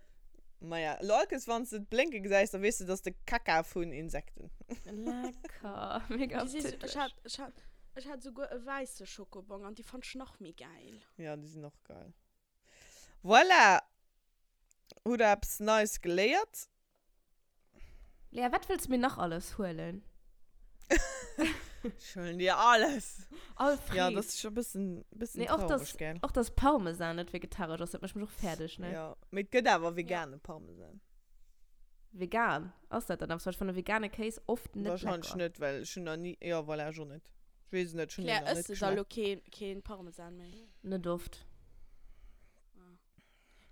Maja, lo allkes wann s de et blénke gesäis, da weess de, et ass de Kacka vun Insekten. Lecker, mega Déi si sou, appétitlech. ech hat, ech hat, ech hat souguer e wäisse Schokobon an déi fannt ech nach méi gäil. Ja, déi sinn och geil. Voilà! Hutt der eppes Neies geléiert? Lea, wat wëlls du mir nach alles huelen? Ech huelen dir alles. All Freed. Ja, das ist schon e bëssen, bëssen Nee, och traurig, dass, gell? och dass Parmesan net vegetaresch ass, dat mécht mech och fäerdeg, ne? Ja, mee et gëtt awer vegane Parmesan. Vegan? Ass dat dann eppes? Well ech fanne vegane Kéis oft net Wahrscheinlech lecker. net, well ech hunn nach ni, jo, voilà, ech och net. Ech weess et net, ech hunn Claire, deen nach ëss net de da lo geschmaacht. keen, keen Parmesan méi? Net oft. Ah.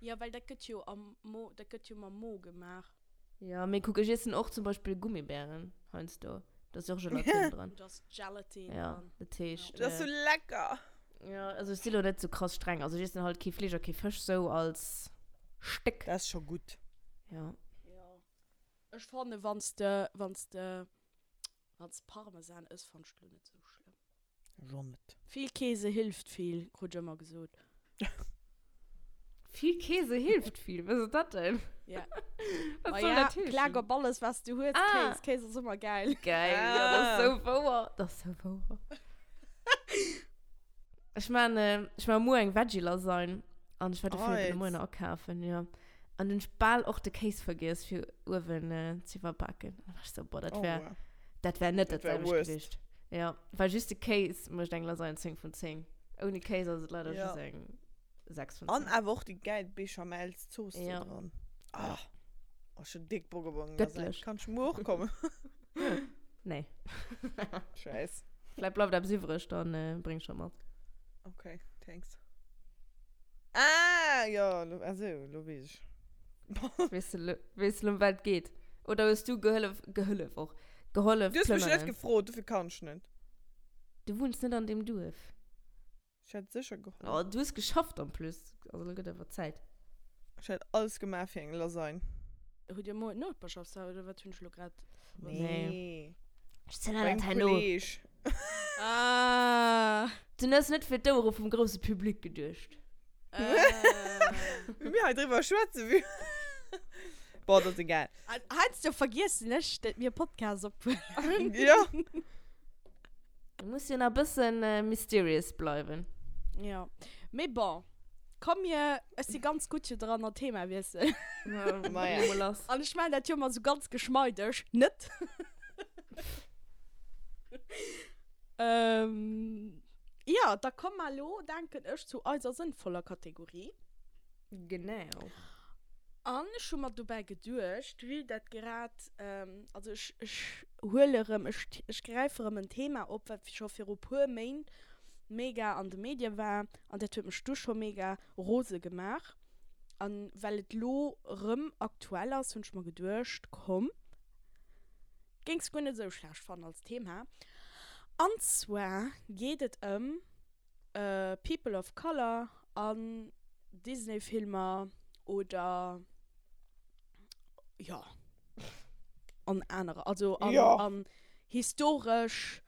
Jo, well dat gëtt jo am Mo, dat gëtt jo mam Mo gemaach. Jo, mee kuck, ech iessen och zum Beispill Gummibären heiansdo. Do ass jo och Gelatine dran. Do ass Gelatine Ja, dran. dat heescht. Dat ass sou lecker! Jo, also ech si lo net sou krass streng. Also ech iessen halt kee Fleesch a kee Fësch sou als Stéck. Dat ass scho gutt. Jo. Jo. Ech fanne wann s de, wann s de, wann s de Parmesan ëss, fann ech et lo net sou schlëmm. Ech och net. Vill Käse hilft viel, krut ech ëmmer gesot. Vill Käse hilft viel, was ass dat denn? Ja. Was Ma soll ja, dat heeschen? klag op alles, was du hues, Ah. Kéis. Kéis ass ëmmer gäil. Geil, ja, dat ass sou wouer. Dat ass sou wouer. Ech maan, ech maan muer eng Veggie-Lasagne an ech war dofir de Moien nach akafen, jo. An hunn ech bal och de Kéis vergiess fir uewen ze iwwerbaken. An da war ech sou, boah, dat wär, dat wär net dat selwecht gewiescht. Ja, well just de Kéis mécht eng Lasagne 10 vun 10. Ouni Kéis ass et leider just eng 6 vun 10. An awer och déi gäil Béchamelszooss do dran. Ah, ech hunn déck Bock op eng Lasagne. Göttlich. Kann ech muer och kommen? Nee. Scheiss. Vläicht bleift eppes iwwreg, dann bréng ech der mat. Okay, thanks. Ah, jo, lo, ah sou, lo weess ech. Weess de lo, weess de lo, ëm wat et geet? Oder hues du gehëllef, gehëllef och, gehollef Du hues mech net plënneren? gefrot, dofir kann ech net. Du wunns net an deem Duerf. Ech hätt sécher gehollef. Oh, du hues geschafft en plus. Also lo gëtt awer Zäit. Ech hätt alles gemaach fir eng Lasagne. Hutt Dir muer Nopeschaftshaus oder wat hunn ech lo grad? Nee. Ech zielen dat Beim herno. Kolleg. Ah. Du hues net fir d'Ouere vum grousse Public geduecht. Wéi mir hei driwwer schwätzen, wéi. Bon, dat ass egal. Heiansdo vergiessen ech, dat mir Podcast ophuelen. Ja. Du muss jo nach e bëssen mysterious bleiwen. Ja. Mee bon. Komm mir, ech si ganz gutt jo dran an Thema wiesselen. Maja. Mol lass. An ech maachen dat jo ëmmer sou ganz geschmeideg. Net? Ähm, jo, da komme mer elo, denken ech, zu eiser sënnvoller Kategorie. Genau. An ech hu mer dobäi geduecht, vue dat grad, also ech, ech huele rëm, ech, ech gräife rëm en Thema op, wat scho viru puer Méint mega an de Medie war an dat huet mech du scho mega rose gemaach. An well et lo rëm aktuell ass, hunn ech mer geduecht, komm, géings guer net esou schlecht fannen als Thema. An zwar geet et ëm People of Color an Disney-Filmer oder jo an anerer, also an, an historesch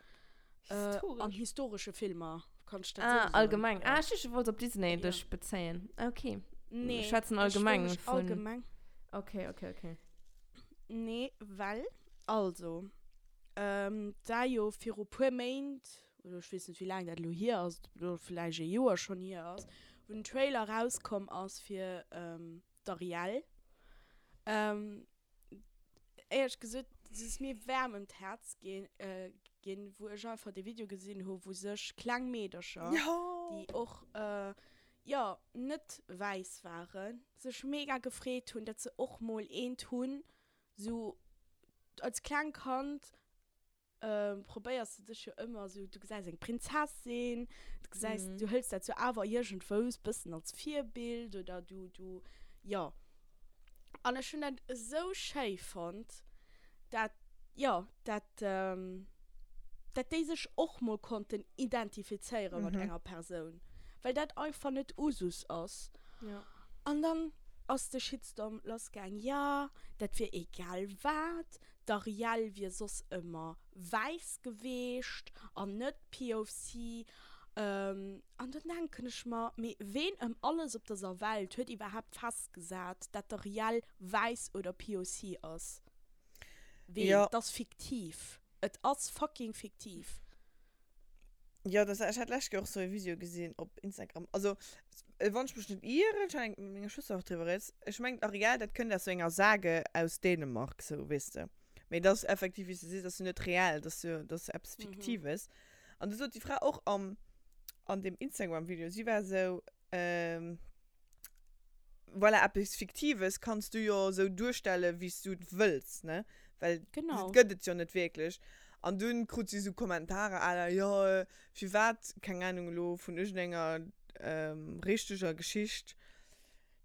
An historesche Filmer, kann ech dat Ah, sou soen? allgemeng. Ah, ech duecht, du wollts op Disney Ja. dech bezéien. Okay. Nee, Mir schwätzen ech wëll allgemeng mech vun. allgemeng. Okay, okay, okay. Nee, well, also, ähm, et war jo viru puer Méint, oder ech weess net, wéi laang dat elo hier ass, ob et elo vläicht e Joer schonn hier ass, wou den Trailer erauskomm ass fir, ähm, d'Ariel. Ähm, Éierlech gesot, et ass mir waarm ëm d'Häerz ginn, wou ech einfach dee Video gesinn hu wou sech kleng Meedercher, déi och jo net wäiss waren, sech mega gefreet hunn, datt se och mol eent hunn, sou als kleng Kand probéiers de dech jo ëmmer esou, du gesäis eng Prinzessin, du gesäis, du hëls dat sou awer iergendwous bëssen als Virbild oder du, du, jo. An ech hunn dat esou schéi fonnt, dat, jo, dat, dat déi sech och mol konnten identifizéiere mat enger Persoun, well dat einfach net Usus ass. An dann ass de Shitstorm lassgaang, jo, dat wier egal wat, D'Ariel wier soss ëmmer wäiss geweecht an net POC. An dann denken ech mer, mee ween ëm alles op dëser Welt huet iwwerhaapt festgesat, dat d'Ariel wäiss oder POC ass? Ween? Jo. Et ass fiktiv. Et ass fucking fiktiv. Jo, das, ech hat d'lescht Kéier och sou e Video gesinn op Instagram. Also, wann ech mech net ieren, ech hat eng mat menger Schwëster och driwwer rieds, ech mengen d'Ariel, dat kënnt aus sou enger Sage aus Dänemark, sou, weess de. Mee dat ass effektiv, wéi s de sees, dat ass jo net reell, dat ass jo, dat ass eppes Fiktives. An du sot déi Fra och am, an deem Instagram-Video, si war sou, Voilà, eppes Fiktives kanns du jo esou duerstellen, wéi s du et wëlls, ne? Well Genau. et gëtt et jo net wierklech. An dunn krut si esou Kommentarer à la, jo, firwat, keng Ahnung elo, vun iergendenger richteger Geschicht,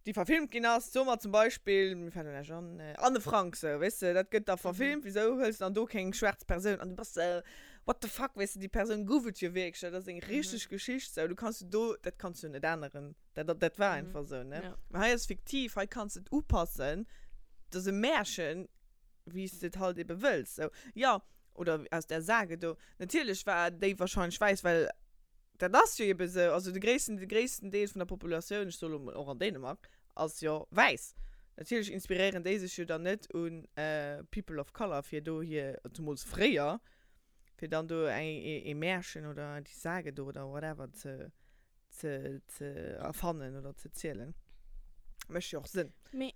déi verfilmt ginn ass, soe mer zum Beispill, mir fält elo näischt an, Anne Frank, sou, weess de, dat gëtt da verfilmt, wisou hëls de dann do keng schwaarz Persoun? An du bass esou, what the fuck, weess de, déi Persoun gouf et jo wierklech, dat ass eng richteg Geschicht, sou, du kanns jo do, dat kanns du jo net änneren. Dat, dat, dat war einfach esou, ne? Ja. Mä hei ass fiktiv, hei kanns de et upassen, dat ass e Märchen, wéi s de et halt ebe wëlls, sou. Jo, oder aus där Sage do. Natierlech war déi wahrscheinlech wäiss, well dat ass jo ebe esou, also de gréissten, de gréissten Deel vun der Populatioun, ech soe lo mol och an Dänemark, ass jo wäiss. Natierlech inspiréieren déi sech jo dann net un People of Color, fir do hir, zemools fréier, fir dann do eng, ee Märchen oder déi Sage do oder whatever ze, ze, ze erfannen oder ze zielen. Mécht jo och Sënn. Mee,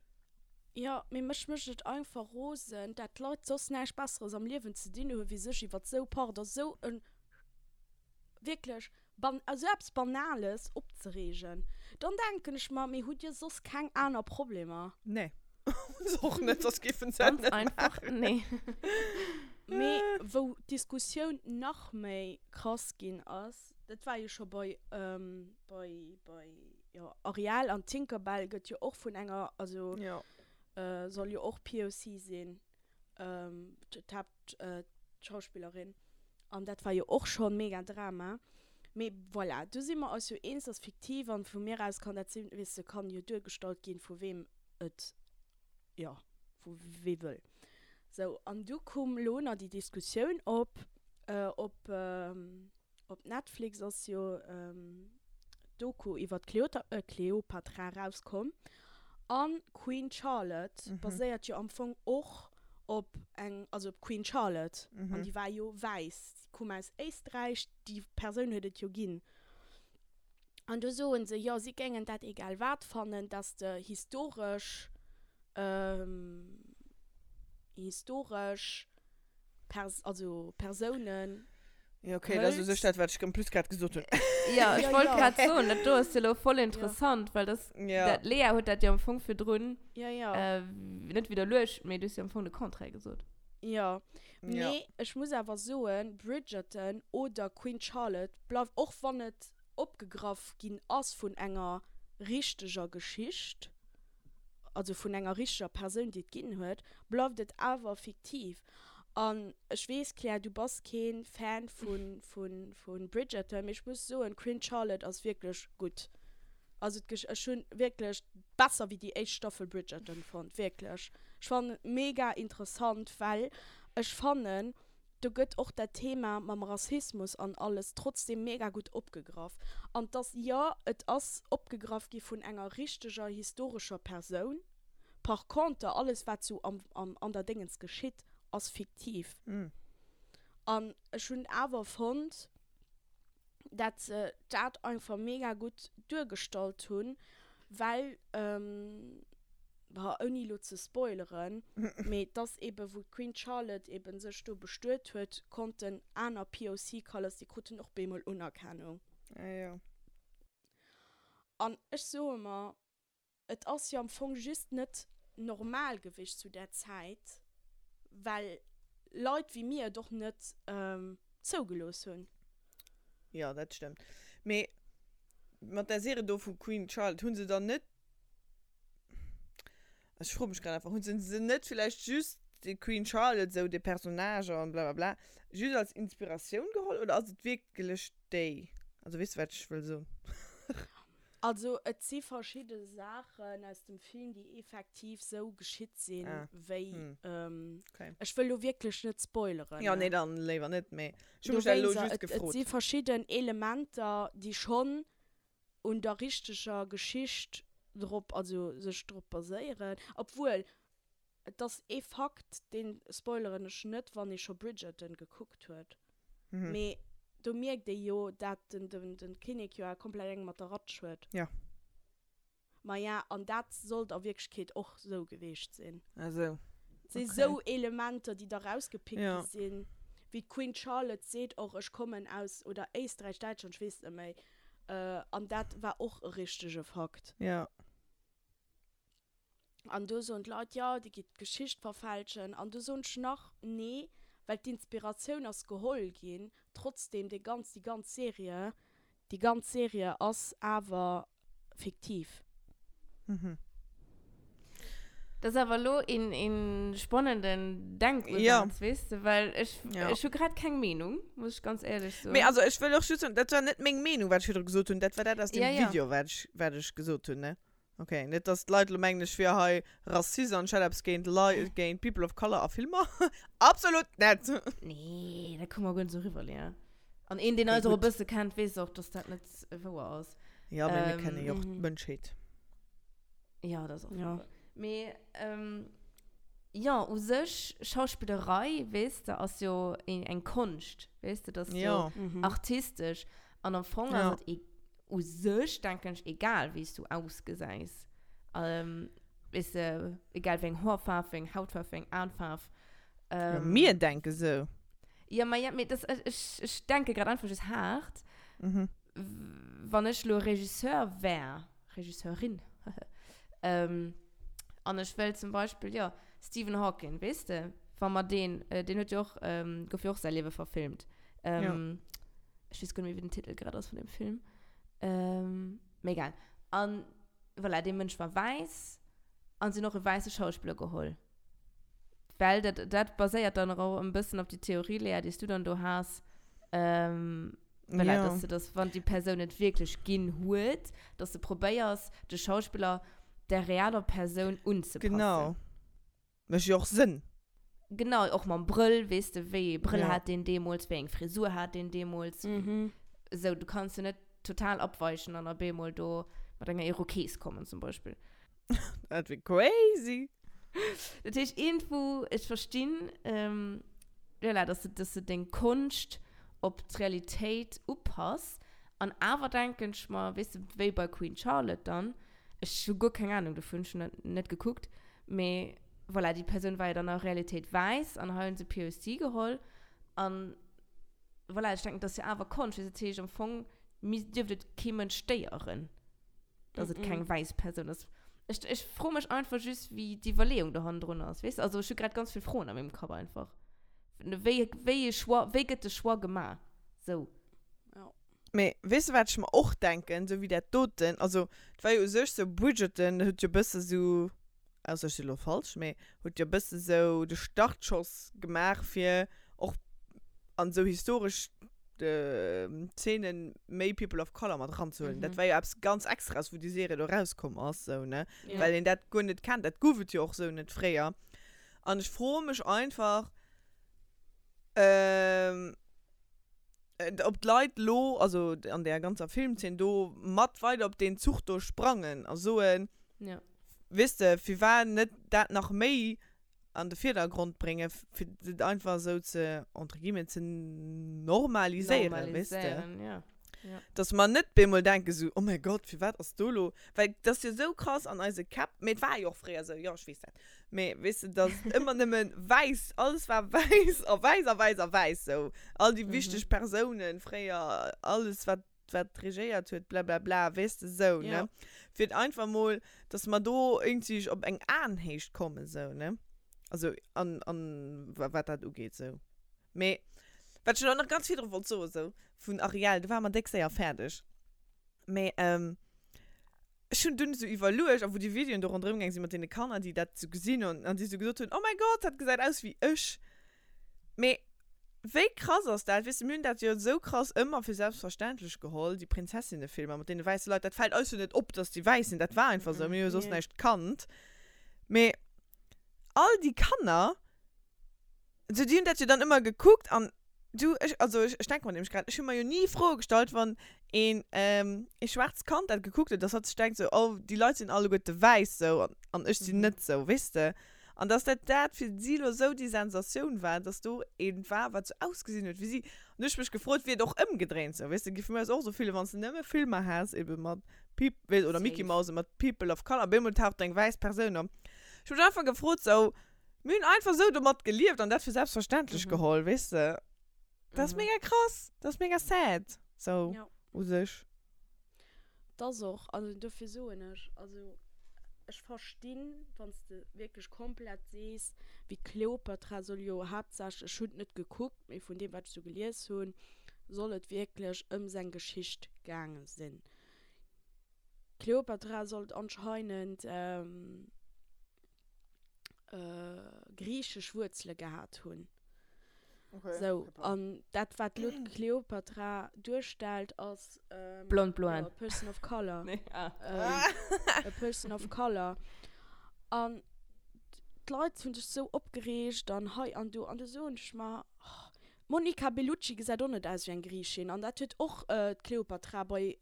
jo, mee mech mécht et einfach rosen, dat d'Leit soss näischt Besseres am Liewen ze dinn hu wéi sech iwwert sou, pardon, sou en wierklech ban, sou eppes Banales opzereegen. Dann denken ech mer, mee hutt dir soss keng aner Problemer? Nee. Hunn se och net, soss géifen se et Ganz net einfach, maachen. nee. Mee wou d'Diskussioun nach méi krass ginn ass, Dat war jo scho bei, bei, bei, jo, Ariel an Tinkerbell gëtt jo och vun enger, also Jo. soll jo och POC sinn, d'Haaptschauspillerin. An dat war jo och scho mega Drama. Mee voilà, do si mer eis jo eens, ass fiktiv an vu mir aus kann dat sinn, weess de, kann jo duergestallt ginn, vu weem et, jo, vu wee wëll. Sou, an du koum lo nach déi Diskussioun op, op, Op Netflix ass jo d'Doku iwwer d'Kleopatra erauskomm. An Queen Charlotte baséiert jo am Fong och op eng, also op d'Queen Charlotte. An déi war jo wäiss, déi koum aus Éisträich, déi Persoun huet et jo ginn. An do soen se, jo si géingen dat egal wat fannen, dass de historesch, historesch Pers also Persounen Ja, okay, dat ass u sech dat, wat ech en plus grad gesot hunn. Ja, ech Ja, wollt ja. grad soen, dat do ass jo elo voll interessant, well das, Ja. dat, Lea huet dat jo am Fong virdrun Ja, ja. äh, net widderluecht, mee du hues jo am Fong de Contraire gesot. Ja. Ja. Mee ech muss awer soen, Bridgerton oder Queen Charlotte bleift, och wann et opgegraff ginn ass vun enger richteger Geschicht, also vun enger richteger Persoun, déi et ginn huet, bleift et awer fiktiv. An ech weess, Claire, du bass kee Fan vu Bridgerton, mee ech muss soen, Queen Charlotte ass wierklech gutt. Also ech hunn wierklech besser wéi déi éischt Staffel Bridgerton fonnt, wierklech. Ech fannen et mega interessant, well ech fannen, do gëtt och dat Thema mam Rassismus an alles trotzdem mega gutt opgegraff. An dass, jo, et ass opgegraff gi vun enger richteger historescher Persoun, par conter alles wat sou am, am, an der Déngens geschitt, ass fiktiv. An ech hunn awer fonnt, dat se dat einfach mega gutt duergestallt hunn, well, bah, ouni elo ze spoileren, mee dass eben, wou d'Queen Charlotte eben sech do bestuet huet, konnten aner POC Colors, déi kruten och bemol Unerkennung. Ah jo. An ech soe mer, Et ass jo am Fong just net normal gewicht zu där Zäit, well Leit wéi mir et och net zougelooss hunn. Jo, dat stëmmt. Mee mat där Serie do vu Queen Charlotte, hu se dann net, ech froe mech grad einfach, hu se se net villäicht just déi Queen Charlotte, esou dee Personnage an blablabla, just als Inspiratioun geholl oder ass et wierklech déi? Also weess de wat ech wëll soen? Also et si verschidde Saachen aus dem Film, déi effektiv sou geschitt sinn, Ah. wéi. Hm. Ähm, Okay. Ech wëll lo wierklech net spoileren. Ja, nee, dann léiwer net, mee ech hu mech dat elo Dowéinster, just et, et gefrot. si verschidden Elementer, déi schonn un der richteger Geschicht drop, also sech drop baséieren. Obwuel, Et ass ee Fakt, deen spoileren ech net, wann ee scho Bridgerton gekuckt huet, mee. Do mierkt ee jo, dat den, den, den Kinnek jo komplett eng mat der Ratsch huet. Ja. Maja, an dat sollt a Wierklechkeet och sou geweecht sinn. Ah sou. Et si sou Elementer, déi da rausgepickt gi sinn. Wéi d'Queen Charlotte seet och, ech kommen aus, oder Éisträich, Däitschland, ech weess net méi. An dat war och e richtege Fakt. Ja. An do soen d'Leit, jo, Dir gitt d'Geschicht verfälschen. An do soen ech nach, nee, well d'Inspiratioun ass geholl ginn. Trotzdem, déi ganz, déi ganz Serie, déi ganz Serie ass awer fiktiv. Mhm. Dat ass awer elo een, een spannenden Denkusaz, Ja. weess de, well ech, Ja. ech hu grad keng Meenung, muss ech ganz éierlech soen. Mee also ech wëll och just soen, dat war net meng Meenung, wat ech virdru gesot hunn, dat war dat aus dem Ja, ja. Video, wat ech, wat ech gesot hunn, ne? Ok, net dass d'Leit elo mengen ech wier hei Rassist an ech hätt eppes géint Lei, géint People of Color a Filmer. Absolut net! Nee, dat koum mer guer net esou eriwwer, Léa. An een, deen Okay, eis och e gutt. bësse kennt, weess och, dass dat net wouer ass. Ja, mee mir kenne jo och Ähm, d'Mënschheet. Ja, dat ass och Ja. wouer. Mee, ähm, jo, u sech, Schauspillerei, weess de, ass jo een, eng Konscht, weess de, dat ass jo Ja. Mhm. artistesch. An am Fong Ja. ass et e u sech, denken ech, egal wéi s du ausgesäis. Ähm, weess de, egal wéi eng Hoerfaarf, wéi eng Hautfaarf, wéi eng Aenfaarf. Ja, Ähm, mir denke sou. Ja, ma ja, mee das, ech, ech, ech denke grad einfach just haart. Mhm. Wann ech lo Regisseur wär, Regisseurin, ähm, an ech wëll zum Beispill, jo, Stephen Hawking, weess de, wa mer deen, äh, deen huet jo och, ähm, gouf jo och säi Liewe verfilmt. Ähm, Ja. Ech weess guer net méi, wéi den Titel grad ass vun dem Film. Ähm, mee egal. An voilà, dee Mënsch war wäiss an se hunn och e wäisse Schauspiller geholl. Well dat, dat baséiert dann och e bëssen op déi Theorie, Léa, déi s du dann do has. Ähm, voilà, Ja. dass du das, wann déi Persoun et wierklech ginn huet, dass du probéiers, de Schauspiller der realer Persoun unzepassen. Genau. Mécht jo och Sënn. Genau, och mam Brëll, weess de, wéi ee Brëll Ja. hat deen deemools, wéi eng Frisur hat deen deemools. Mhm. Esou, du kanns jo net total abweichen an op eemol do mat enger Irokees kommen, zum Beispill. Dat wier crazy. Dat heescht, iergendwou, ech verstinn, ähm, voilà, dass du, dass du deng Konscht op d'Realitéit upass. An awer denken ech mer, weess de, wéi bei Queen Charlotte dann, ech hu guer keng Ahnung dovun, ech hunn dat net gekuckt, Mee voilà, déi Persoun war jo dann a Realitéit wäiss an hei hunn se POC geholl. An voilà, ech denken, dat ass jo awer Konscht. Dat heescht, am Fong dierft et kee Mënsch stéieren, dass et keng wäiss Persoun ass. Ech, ech froe mech einfach just, wéi d'Iwwerleeung do hannendrun ass, weess de? Also ech hu grad ganz vill Froen a mengem Kapp einfach. Wéi, wéi e Choix, wéi gëtt de Choix gemaach? Sou. Jo. Mee weess de wat ech mer och denken, sou wéi dat doten, also et war jo u sech sou Bridgerton huet jo bësse sou, ausser ech si lo falsch, mee huet jo bësse sou de Startschoss gemaach fir och an sou historesch Zeenen méi People of Color mat eranzehuelen. Dat war jo eppes ganz extraes wou déi Serie do erauskomm ass sou ne, well een dat guer net kennt, dat gouf et jo och sou net fréier. An ech froe mech einfach, Ob d'Leit lo, also an där ganzer Filmzeen do, mat weider op deen Zuch do sprangen a soen, Ja. weess de, firwat net dat nach méi an de Virdergrond bréngen, fir et einfach esou ze, entre guillemets, ze normaliséieren, weess de. Normaliséieren, ja. Ja. Dass mer net bemol denken esou, oh mäi Gott, firwat ass do lo, well dat ass jo esou krass an eise Käpp, mee et war jo och fréier esou, jo ech weess dat, mee weess de, dass et ëmmer nëmme wäiss, alles war wäiss a wäiss a wäiss a wäiss esou, all déi wichteg Persounen fréier, alles wat wat regéiert huet, blablabla, weess de esou, ne, fir et einfach mol, dass mer do iergendwéi op eng Aenhéicht kommen esou, ne, also an an wat dat ugeet esou. Mee wat ech elo nach ganz virdru wollt soen, esou vun Ariel, do ware mer déck séier fäerdeg. Mee ech hunn dunn esou iwwerluecht, a wou déi Videoen do ronderëm gaang sinn mat deene Kanner, déi dat esou gesinn hunn an déi esou gesot hunn, Oh mäi Gott, dat gesäit aus wéi ech. Mee wéi krass ass dat? Weess de, mir hunn dat jo esou krass ëmmer fir selbstverständlech geholl, déi Prinzessinnefilmer mat deene wäisse Leit. Dat fält eis jo net op, dass déi wäiss sinn, dat war einfach esou, mir hu jo soss näischt kannt. Mee all déi Kanner, So, déi hunn dat jo dann ëmmer gekuckt an du, ech, also ech, ech denke mer nämlech grad, ech hu mer jo ni Froe gestallt, wann een, ähm, ee schwaarzt Kand dat gekuckt huet, dass hatt sech denkt sou, oh, déi Leit sinn alleguerte wäiss sou an, an ech sinn net sou, weess de? An dass dat dat fir si lo sou déi Sensatioun war, dass do eent war, wat sou ausgesinn huet wéi si. An du hu ech mech gefrot, wier et och ëmgedréint sou, weess de, géif mir eis och sou fillen, wann s de nëmme Filmer häss ebe mat Peop-, weess, oder Mickey Safe. Mouse mat People of Color, op eemol taucht do eng wäiss Persoun op. Ech hu mech einfach gefrot sou, mir hunn einfach sou domat gelieft an dat fir selbstverständlech geholl, weess de. Dat ass mega krass, dat ass mega sad, sou u sech. Dat ass och, also dofir soen ech, also ech verstinn, wann s de wierklech komplett sees, wéi Kleopatra soll jo haaptsächlech, ech hunn et net gekuckt, mee vun deem wat ech sou gelies hunn, soll et wierklech ëm seng Geschicht gaange sinn. D'Kleopatra sollt anscheinend griichesch Wuerzele gehat hunn. Sou, an dat wat elo d'Kleopatra duerstellt ass Blond bloen. a person of color. Nee, ah. A person of color. An d'Leit hunn sech sou opgereegt an hei an do. An du soen ech mer, oh, D'Monica Bellucci gesäit och net aus wéi eng Griichin an dat huet och d'Kleopatra bei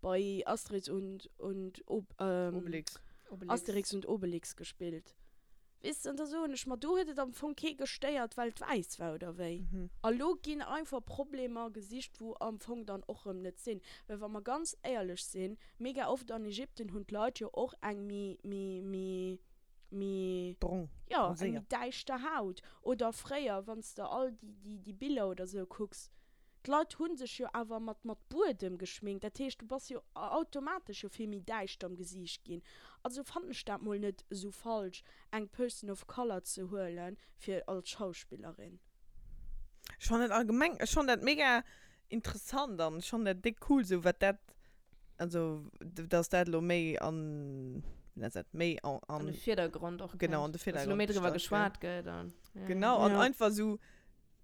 bei Asterix und und Obelix. Asterix und Obelix gespillt. Weess de, an da soen ech mer, do huet et am Fong kee gestéiert, well et wäiss war oder wéi. A lo ginn einfach Problemer gesicht, wou am Fong dann och rëm net sinn. Well wa mer ganz éierlech sinn, mega oft an Ägypten hunn d'Leit jo och eng méi méi méi méi Brong, jo, eng méi bronzéiert. däischter Haut. Oder fréier, wann s de all déi, déi, déi Biller oder sou kucks, d'Leit hu sech jo awer mat, mat Buedem geschminkt. Dat heescht, du bass jo automatesch jo vill méi däischter am Gesiicht ginn. Also fannen ech dat mol net esou falsch, eng Person of Color ze huelen, fir als Schauspillerin. Ech fannen dat allgemeng, ech fannen dat mega interessant an ech fannen dat déck cool, sou wat dat Also, dass dat elo méi an, wéi nennt dat, méi an, An de Virdergrond och genau, an kënnt. de Dass elo Virdergrond méi driwwer gestallt gëtt. geschwat gëtt an, ja. Genau, an Ja. einfach esou,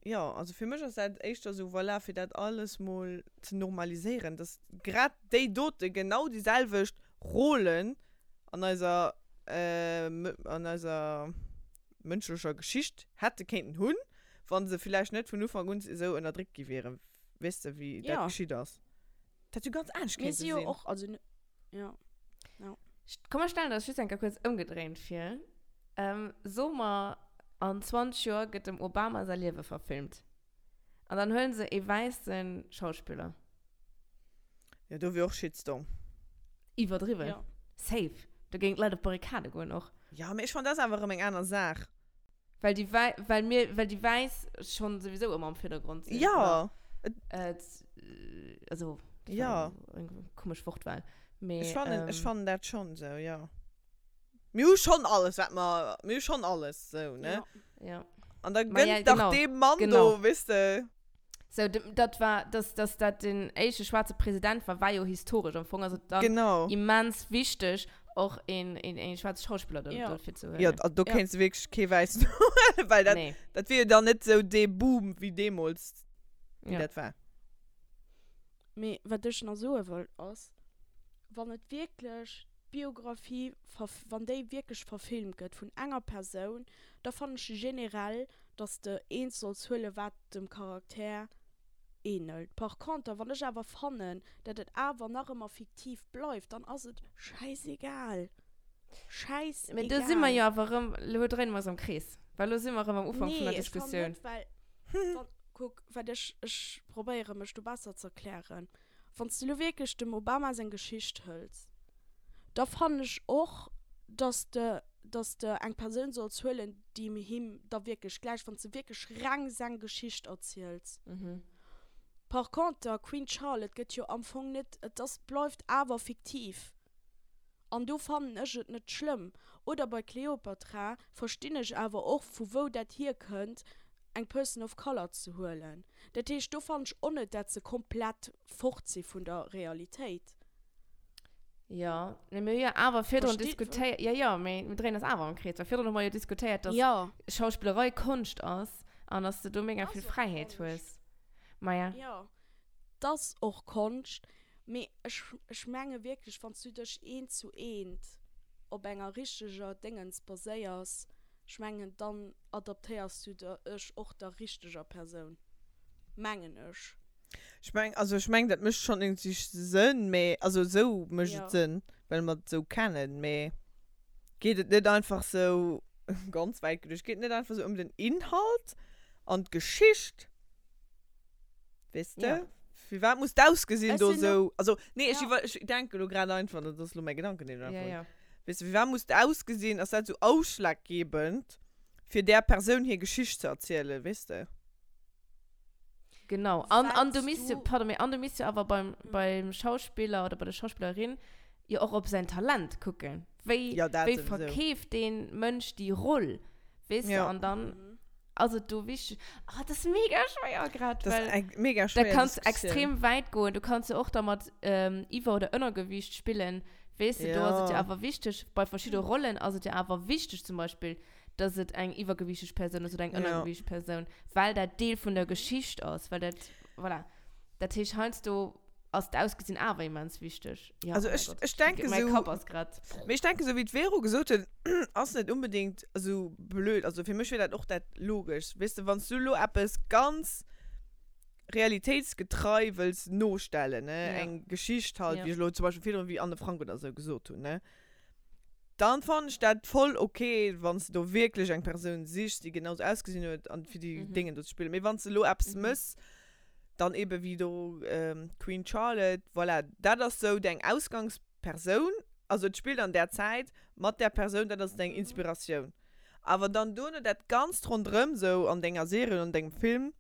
jo, also fir mech ass dat éischter esou, voilà, fir dat alles mol ze normaliséieren, dass grad déi dote genau déi selwecht Rôlen an eiser, an eiser mënschlecher Geschicht hätte kéinten hunn, wa se villäicht net vun Ufank un esou ënnerdréckt gi wieren, weess de, wéi dat Ja. geschitt ass. Dat jo ganz anescht Mir kéinte si jo sinn. och, also, ja, ja. Komm mer stellen eis just eng Kéier kuerz ëmgedréint vir. Ähm, so mer, an 20 Joer gëtt dem Obama säi Liewe verfilmt. An dann huelen se ee wäisse Schauspiller. Jo, do wier och Shitstorm. Iwwerdriwwen. Ja. Safe. Do géingen d'Leit op d'Barrikade goen och. Jo, mee ech fannen, dat ass awer erëm eng aner Saach. Well déi Wäi, well mir, well déi Wäiss schonn souwisou ëmmer am Virdergrond sinn. Ja. Oder, äh, also, dat Ja. war eng komesch Wortwahl. Mee, Ech fannen, ech ähm, fannen dat schonn esou, jo. Mir hu schonn alles, wat mer, mir hu schonn alles esou, ne? Ja. Ja. An da Ma ja, gënnt dach genau, deem Mann genau. do, weess de. Sou, dat war, dass, dass dat den éischte schwaarze President war, war jo historesch. Am Fong ass et dann Genau. immens wichteg, och een, een, een schwaarze Schauspiller do, Ja. dofir ze huelen. Jo, also do Ja. kéints de wierklech kee wäissen huelen, well dat, Nee. dat wier jo dann net sou dee Boom wéi deemools, wéi Ja. dat war. Mee wat ech nach soe wëll ass, wann et wierklech d'Biographie, wann déi wierklech verfilmt gëtt vun enger Persoun, da fannen ech generell, dass de eent solls huelen, wat dem Charakter ähnelt. Par conter, wann ech awer fannen, dat et awer nach ëmmer fiktiv bleift, dann ass et schäisegal. Schäisegal. Mee do si mer jo awer erëm, elo dréine mer eis am Krees, well elo si mer erëm am Ufank vun der Nee, ech fannen Diskussioun. net, well, wann, kuck, wat ech, ech probéiere mech do besser ze erklären. Wann s de elo wierklech dem Obama seng Geschicht hëls, da fannen ech och, dass de, dass de eng Persoun solls huelen, déi him da wierklech gläicht, wann s de wierklech reng seng Geschicht erziels. Par conter, Queen Charlotte gëtt jo am Fong net, et ass, bleift awer fiktiv. An do fannen ech et net schlëmm. Oder bei Cleopatra verstinn ech awer och, vu wou dat hierkënnt, eng Person of Color ze huelen. Dat heescht, do fannen ech och net, dat se komplett fort si vun der Realitéit. Jo, mee mir hu jo awer virdrun Versteet- diskutéiert, jo, jo, mee mir dréinen eis awer am Krees, well virdrun hu mer jo diskutéiert, dass Jo. Schauspillerei Konscht ass an dass de do mega Ass vill och Fräiheet Konscht. hues. Maja. Jo, 't ass och Konscht, mee ech, ech menge wierklech, wann s du dech eent zu eent op enger richteger Déngens baséiers, Ech mengen dann adaptéiers du dech och der richteger Persoun, mengen ech. Ech meng, also ech meng dat mécht schonn iergendwéi Sënn, mee also esou mécht Ja. et Sënn, well mer et esou kennen, mee geet et net einfach esou? ganz wäit geduecht, geet et net einfach esou ëm den Inhalt an d'Geschicht? Weess de? Ja. Firwat muss d'Ausgesinn Ech do sinn esou, also nee, ech Ja. iwwer, ech denke lo grad einfach, dat ass lo mäi Gedanken, deen ech Ja, einfach hunn. ja. Weess de, firwat muss d'Ausgesinn, ass dat esou ausschlaggebend, fir där Persoun hir Geschicht ze erzielen, weess de? Genau. An, an du Wat misst jo, du- pardon, mee an du misst jo awer beim, beim Schauspiller oder bei der Schauspillerin jo och op säin Talent kucken. Wéi, Ja, dat wéi sowieso. verkeeft deen Mënsch déi Roll, weess de? Ja. An dann ass et do wichteg. Ah, dat ass mega schwéier grad, Das well ist eng mega da schwéier kannst du Diskussioun. extrem wäit goen. Du kannst jo och da mat ähm, Iwwer oder Ënnergewiicht spillen, weess de? Do ass et jo Ja. awer wichteg, bei verschidde Rollen ass et jo awer wichteg zum Beispill, dass et eng iwwergewiichteg Persoun ass oder eng Ja. ënnergewiichteg Persoun, well dat Deel vun der Geschicht ass, well dat, voilà. Dat heescht, heiansdo ass d'Ausgesinn awer immens wichteg. Ja, Also oh mäi ech, Gott, ech denke mäi sou, Kapp ass grad. mee ech denke sou wéi d'Vero gesot huet, ass net unbedingt esou blöd. Also fir mech wier dat och dat Logeschst. Weess de, wann s du elo eppes ganz realitéitsgetrei wëlls nostellen, ne, Ja. eng Geschicht halt, Ja. wéi ech elo zum Beispill virdrun wéi Anne Frank oder sou gesot hunn, ne, Dann fannen ech dat voll ok, wanns de do wierklech eng Persoun sichs, déi genau sou ausgesinn huet an fir déi Déngen do ze spillen. Mee wanns de elo eppes mëss, dann eben wéi do Queen Charlotte, voilà, dat ass sou deng Ausgangspersoun, also et spillt an där Zäit mat där Persoun, dat ass deng Inspiratioun. Awer dann duerno dat Ganzt ronderëm sou an denger Serie oder an dengem Film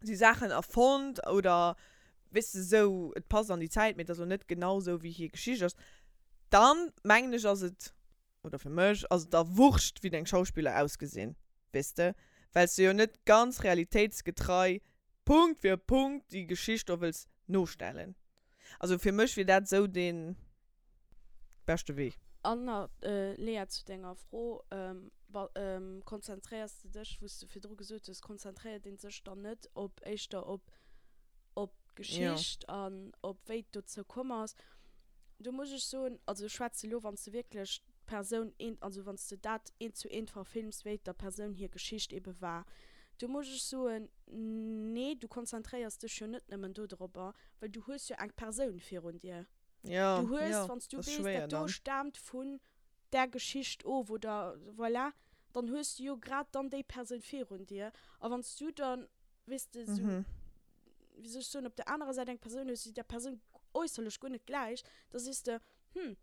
si Saachen erfonnt oder weess de, sou, et passt an déi Zäit, mee et ass elo net genau sou, wéi hir Geschicht ass, dann, mengen ech, ass et, oder fir mech, ass et da wurscht, wéi deng Schauspiller ausgesinn, weess de, well s de jo net ganz realitéitsgetrei, Punkt fir Punkt, déi Geschicht do wëlls nostellen. Also fir mech wier dat sou dee beschte Wee. An nach, Lea, zu denger Fro, Konzentréiers de dech, wou s de virdru gesot hues, konzentréiert ee sech dann net op éischter op op d'Geschicht an op wéi et dozou komm ass? Do muss ech soen, also ech schwätze lo, wann s de wierklech d'Persoun eent, also wann s de dat eent zu eent verfilms, wéi et der Persoun hir Geschicht ebe war, do muss ech soen, nee, du konzentréiers dech jo net nëmmen dodropper, well du hues jo eng Persoun virun dir. Ja, Du hues, ja, wann s du das ist weess, schwéier dat do dann. staamt vun där Geschicht of oder voilà, dann hues du jo grad dann déi Persoun virun dir. A wann s du dann, weess de, sou, Mhm. wéi soll ech soen, op der anerer Säit eng Persoun hues, déi där Persoun äusserlech guer net gläicht, da sees de, hm,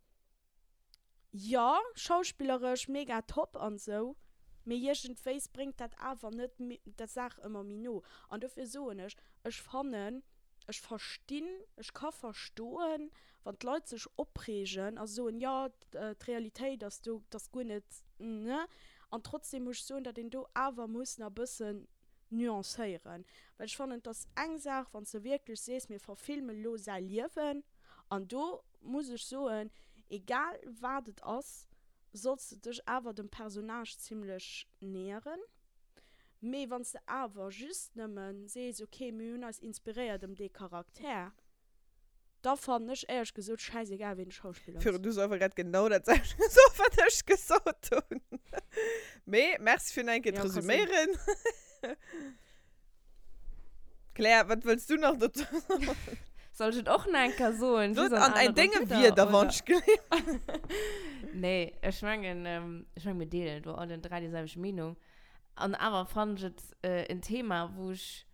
jo, schauspilleresch mega top an sou, mee iergendwéis bréngt dat awer net der Saach ëmmer méi no. An dofir soen ech, ech fannen, Ech verstinn, ech ka verstoen, wann d'Leit sech opreegen a soen, jo, d'Realitéit ass do, dat ass guer net, ne. An trotzdem muss ech soen, datt een do awer muss nach e bëssen nuancéieren. Well ech fannen, et ass eng Saach, wann s de wierklech sees, mir verfilme lo säi Liewen. An do muss ech soen, egal wat et ass, solls de dech awer dem Personnage zimlech näheren. Mee wann s de awer just nëmmen sees, ok, mir hunn eis inspiréiert ëm dee Charakter, da fannen ech éierlech gesot schäisegal, ween de Schauspiller ass. Virun, du hues einfach grad genau dat selwecht gesot, wat ech gesot hunn. Mee merci fir nach eng Kéier Ja, ka sinn. d'Resuméieren. Claire, wat wëlls du nach dozou soen? Soll ech et och nach eng Kéier soen? Sot Just an an anere denge Wierder, Wierder, oder? wann ech gleewen. Nee, ech mengen, ech mengen, mir deelen do allen 3 déi selwecht Meenung. An awer fannen ech et en Thema, wou ech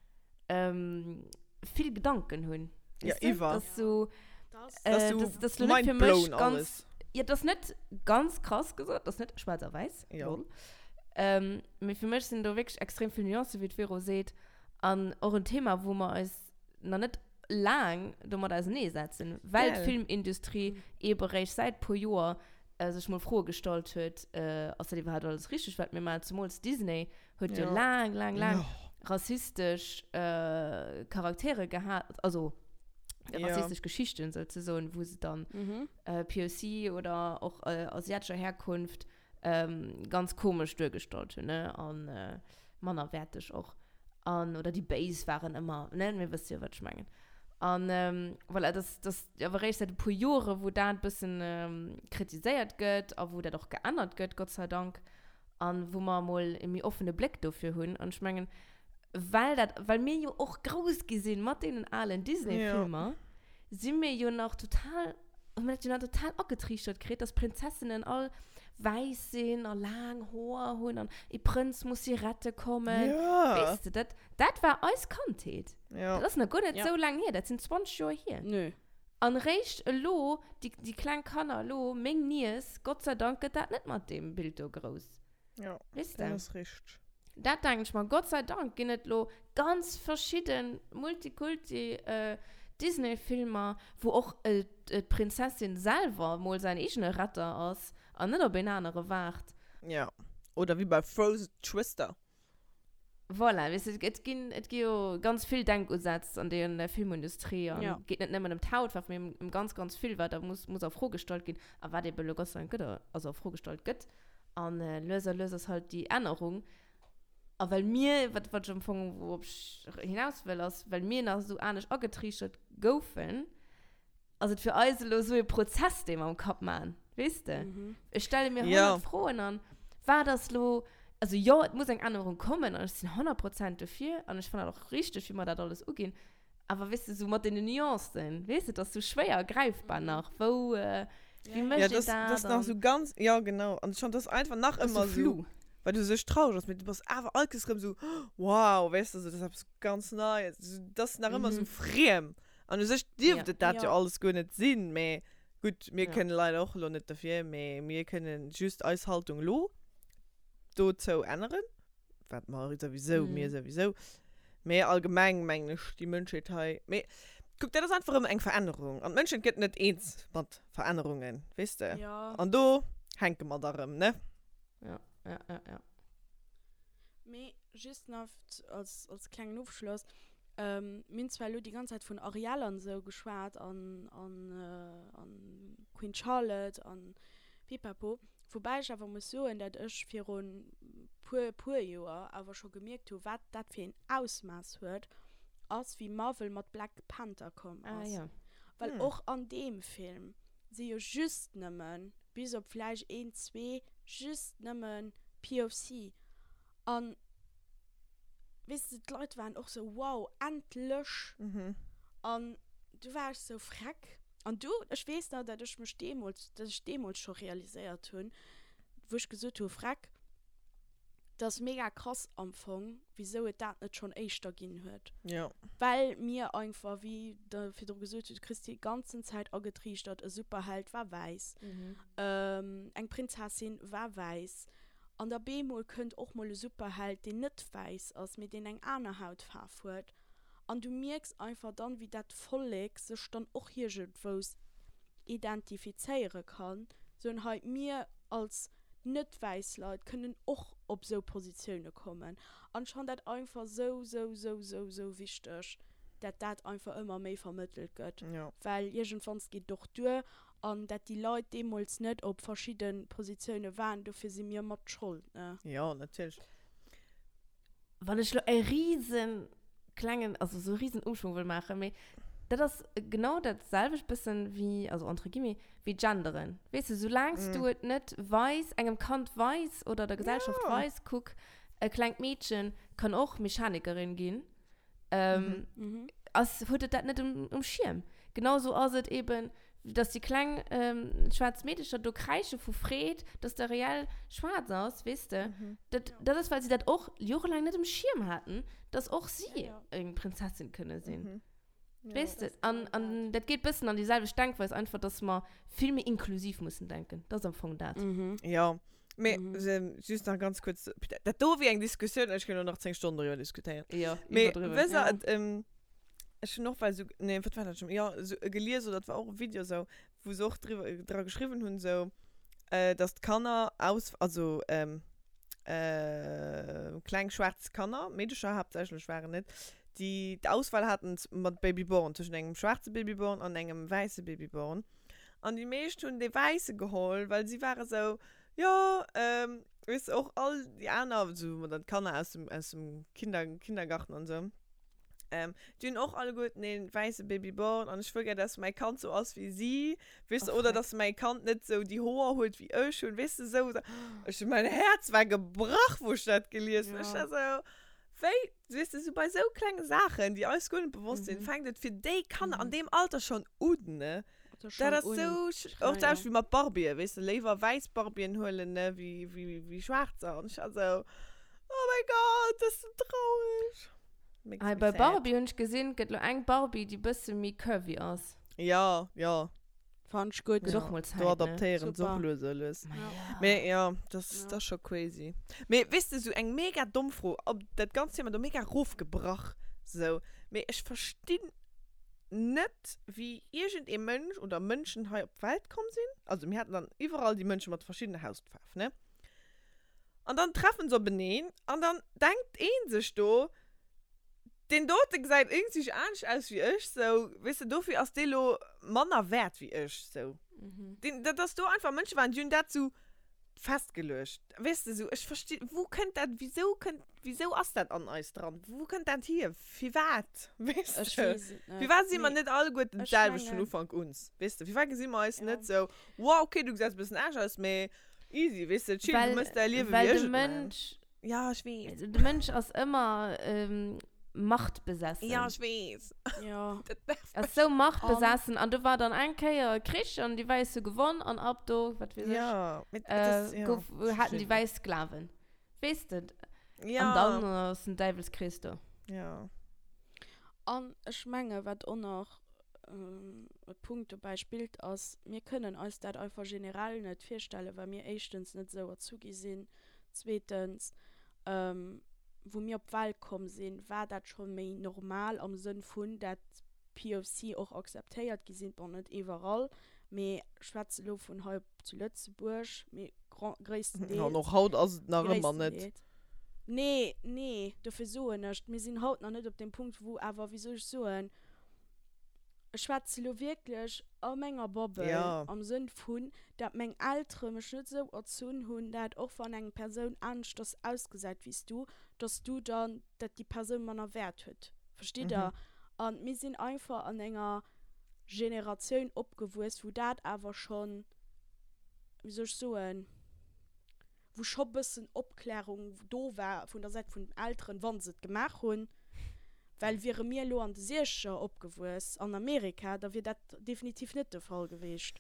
vill Gedanken hunn. Ja, Weess de? iwwer. Das ist so, Das äh, ist so das, das ist lo net fir mech mindblown ganz, alles. Ja, das ist net ganz krass gesot, das ist net schwarz a weiß. Ja. Lol. Ähm, mee fir mech sinn do wierklech extrem vill Nuancen, wéi d'Vero seet. An och en Thema, wou mer eis nach net laang domat auserneesetzen, well Gell. d'Filmindustrie eebe réischt säit puer Joer sech mol Froe gestallt huet, ass dat iwwerhaapt alles richteg, wat mir maachen? Zemools Disney huet jo Ja. laang, laang, laang Ja. rassistesch Charaktere gehat, also Ja. rassistesch Geschichten souzesoen, wou se dann POC oder och asiatescher Herkunft ganz komesch duergestallt hunn, ne, an mannerwäerteg och. An, oder déi Béis waren ëmmer, ne, mir wësse jo, wat ech mengen. An voilà, dat ass awer eréischt säit e puer Jore wou dat e bëssen kritiséiert gëtt a wou dat och geännert gëtt, Gott sei Dank, an wou mer emol e méi offene Bléck dofir hunn. An ech mengen, well dat, well mir jo och grouss gi sinn mat deenen alen Disney-Filmer, si mir jo nach total, hu mir dat jo nach total agetriichtert kritt, dass Prinzessinnen all. Wäiss sinn a laang Hoer hunn an ee Prënz muss si rette kommen. Ja. Weess de, dat, dat war eis Kandheet. Ja. Dat ass nach guer net Ja. esou laang hier, dat sinn 20 Joer hier. Nö. An réischt elo, déi, déi kleng Kanner elo, meng Niess, Gott sei Dank gëtt dat net mat deem Bild do grouss. Ja, Weess dat de? ass richteg. Dat denken ech mer. Gott sei Dank ginn et lo ganz verschidden Multikulti Disney-Filmer, wou och d'Prinzessin selwer mol säin eegene Retter ass an net op een anere waart. Ja, oder wéi bei Frozen Twister. Voilà, weess de, et ginn, et gi jo ganz vill Denkusätz an der Filmindustrie an et geet net nëmmen ëm d'Hautfaarf, mee ëm ganz, ganz vill, wat da muss, muss a Fro gestallt ginn a wat ebe lo Gott sei Dank gëtt, also a Fro gestallt gëtt. An lues a lues ass halt déi Ännerung. A well mir, wat, wat ech am Fong, wourop ech hinaus wëll, ass, well mir nach esou anescht agetriichtert goufen, ass et fir eis elo esou e Prozess, dee mer am Kapp maachen, weess de? Ech stelle mir 100 Froen an wat ass elo, also jo, et muss eng Ännerung kommen an ech sinn 100 Prozent dofir an ech fannen dat och richteg, wéi mer dat alles uginn, awer weess de, esou mat deenen Nuancen, weess de, et ass esou schwéier gräifbar nach, wou, wéi mécht Ja, een dat dat ass nach esou ganz, jo genau, an ech fannen, dat ass einfach nach ëmmer esou, well du sech traureg ass, mee du bass awer all Kéiers erëm esou, wow, weess de, esou dat ass eppes ganz Neies, dat ass nach ëmmer esou friem. An u sech dierft et dat jo alles guer net sinn, mä gutt, mir kënnen leider och elo net derfir, mä mir kënnen just eis Haltung elo dozou änneren, wat mer souwisou, mir souwisou, mä allgemeng mengen ech déi Mënschheet hei, mä kuck, dat ass einfach erëm eng Verännerung an d'Mënschheet gëtt net eens mat Verännerungen, weess de, an do hänke mer da rëm, ne? Ja, ja, ja, ja. Mee just nach als, als klengen Ofschloss, ähm, mir hunn zwar elo déi ganz Zäit vun Ariel an esou geschwat an, an, an Queen Charlotte an Pipapo, woubäi ech awer muss soen, dat ech virun puer, puer Joer awer scho gemierkt hu wat dat fir een Ausmaass huet, ass wéi Marvel mat Black Panther komm Ah ass. jo. Well och an deem Film si jo just nëmmen, bis op vläicht een, zwee, just nëmmen POC. An weess de, d'Leit waren och sou, wow, endlech! An du war ech sou, freck. An du, ech weess nach, dat ech mech deemools, dat ech deemools scho realiséiert hunn, wou ech gesot hu, freck, dat ass mega krass am Fong, wisou et dat net schonn éischter ginn huet. Jo. Well mir einfach, wéi Der virdru gesot hutt, du kriss déi ganzen Zäit agetriichtert, e Superheld war wäiss, eng Prinzessin war wäiss. An da bemol kënnt och mol e Superheld, deen net wäiss ass, mee deen eng aner Hautfaarf huet. An du mierks einfach dann, wéi dat Vollek sech dann och iergendwous identifizéiere kann, soen, hei, mir als net wäiss Leit kënnen och op esou Positioune kommen. An ech fannen dat einfach esou, esou, esou, esou, esou wichteg, dat dat einfach ëmmer méi vermëttelt gëtt. Well iergendwanns geet et och duer. An dat déi Leit deemools net op verschidde Positioune waren, dofir si mir mat Schold, ne? Jo, natierlech. Wann ech lo e riesen klengen, also sou e riesen Umschwung wëll maachen, mee dat ass genau dat selwecht bëssen wéi, also entre guillemets, wéi genderen. Weess de, soulaangs du et net weis, engem Kand weis oder der Gesellschaft weis, kuck, e klengt Meedchen kann och Mechanikerin ginn, ähm, mhm. ass, huet et dat net um, um Schierm. Genauso ass et eben, dass déi kleng ähm, schwaarz Meedecher do kräische vu Freed, dass der reell schwaarz ass, weess de. Mhm. Dat, ja. dat ass, well si dat och jorelaang net um Schierm haten, dass och si ja, ja. eng Prinzessin kënne sinn. Mhm. Ja, weess de, an, an dat geet bëssen an déi selwecht Denkweis, einfach, dass mer vill méi inklusiv mussen denken. Dat ass am Fong dat. Mhm. Ja. Mee just nach ganz kuerz, dat do wier eng Diskussioun, ech kéint och nach 10 Stonnen doriwwer diskutéieren. Jo, Mee wësst der, et, ech hunn och well esou, nee, wat war dat schonn, jo, esou e gelies oder et war och e Video esou, wou se och driwwer, dra geschriwwen hunn esou, dass d'Kanner aus, also kleng schwaarz Kanner, Meedecher haaptsächlech waren et, déi d'Auswahl haten mat Babyborn, tëschent engem schwaarze Babyborn an engem wäisse Babyborn. An déi meescht hunn dee wäisse geholl, well si ware sou, jo, weess de, och all déi aner, sou mat dann d'Kanner aus dem, aus dem Kinder, Kindergarten an sou, déi hunn och alleguerten ee wäisse Babyborn an ech wëll gär, dass mäi Kand sou ass wéi si, weess de, oder dass mäi Kand net sou déi Hoer huet wéi ech hunn, weess de, sou. Ech hunn, mäin Häerz war gebrach, wou ech dat gelies hunn. Ech war sou, wéi, weess de, sou bei sou klenge Saachen, déi eis guer net bewosst sinn, fänkt et fir déi Kanner an deem Alter schonn un, ne? Dat ass sou, och d'selwecht wéi mat Barbien, weess de, léiwer wäiss Barbien huelen, ne, wéi, wéi, wéi schwaarzer. An ech war sou, oh mäi Gott, dat ass sou traurig. Makes Hei me bei sad. Barbie hunn ech gesinn, et gëtt lo eng Barbie, déi bësse méi curvy ass. Ja, ja. Fand ech gutt. Gëtt och mol Zäit, Do adaptéieren se och Super. lues a lues. Ma ja. Mee ja, dat ass, Ja. dat ass scho crazy. Mee weess de, sou eng mega domm Fro, op dat ganzt Thema do mega rofgebrach, sou, mee ech verstinn net wéi iergend ee Mënsch oder Mënschen hei op d'Welt komm sinn, also mir haten dann iwwerall déi Mënsche mat verschiddene Hautfaarf, ne? An dann treffen se openeen an dann denkt ee sech do, deen dote gesäit iergendwéi anescht aus wéi ech, sou, weess de, dofir ass dee lo manner wäert wéi ech, sou. Deen, dat ass do einfach Mënsche waren, déi hunn dat sou festgeluecht. Weess de, sou, ech versti, wou kënnt dat, wisou kënnt, wisou ass dat an eis dran? Wou kënnt dat hier? Firwat? Weess Ech de? weess et net. Firwat si mer Mee net alleguerten ech d'selwecht vun mengen. Ufank un? Weess de, firwat gesi mer eis Ja. net sou, wow, okay, du gesäis e bëssen anescht aus, mee easy, weess de, chill, du Well, mëss däi Liewe well wéi de ech et man. Mënsch, Ja, ech weess. de Mënsch ass ëmmer ähm, machtbesessen. Ja, ech weess. Ja. Dat nervt Ass mech. sou machtbesessen an do war dann eng Kéier e Krich an déi Wäiss hu gewonn an ab do, wat weess ech, Ja, mee dat ass, äh, ja, gouf, ech haten déi verstinn net. Wäiss Sklaven. Weess de? An Ja. dann ass den Däiwelskrees do. Ja. An ech menge wat och nach e Punkt dobäi spillt ass, mir kënnen eis dat einfach generell net virstellen, well mir éischtens net esou erzu gi sinn, zweetens wou mir op d'Welt komm sinn, war dat scho méi normal am Sënn vun, dat POC och akzeptéiert gi sinn, bon net iwwerall, mee ech schwätze lo vun hei zu Lëtzebuerg, mee gréisstendeels. An och haut ass et nach ëmmer net. Gréisstendeels. Nee, nee, dofir soen ech, mir sinn haut nach net op deem Punkt, wou awer, wéi soll ech soen, ech schwätze lo wierklech a menger Bubble, Ja. am Sënn vun, dat meng Eltere mech net esou erzunn hunn, dat och wann eng Persoun aneschters ausgesäit wéi s du, dass du dann, dat déi Persoun manner Wäert huet. Verstitt Der? An mir sinn einfach an enger Generatioun opgewuess, wou dat awer schonn, wéi soll ech soen, wou scho bëssen Opklärung do war vun der Säit vun den Elteren, wa se et gemaach hunn, well wiere mir elo an de Siechzeger opgewuess an Amerika, da wier dat definitiv net de Fall geweecht.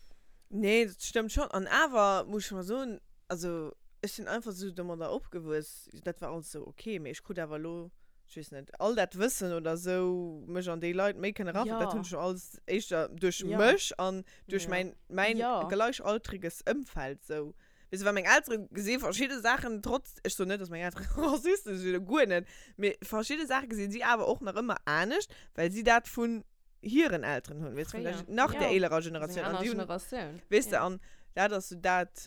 Nee, dat stëmmt schonn. An awer muss ech mol soen, also ech sinn einfach esou domadder opgewuess, dat war alles esou ok, mee ech krut awer elo, ech weess net, all dat Wëssen oder esou, mech an déi Leit méi kënne eraversetzen, dat hunn ech jo alles éischter duerch mech an duerch mäin, mäin gleichaltriges Ëmfeld esou Weess de, well meng Eltere gesi verschidde Saachen trotz, ech soen net, dass meng Eltere Rassisten sinn, guer net, mee verschidde Saache gesinn si awer och nach ëmmer anescht, well si dat vun hiren Elteren hunn, weess de, vun der, nach der eelerer Generatioun. An déi hunn, weess de, an dat ass sou dat,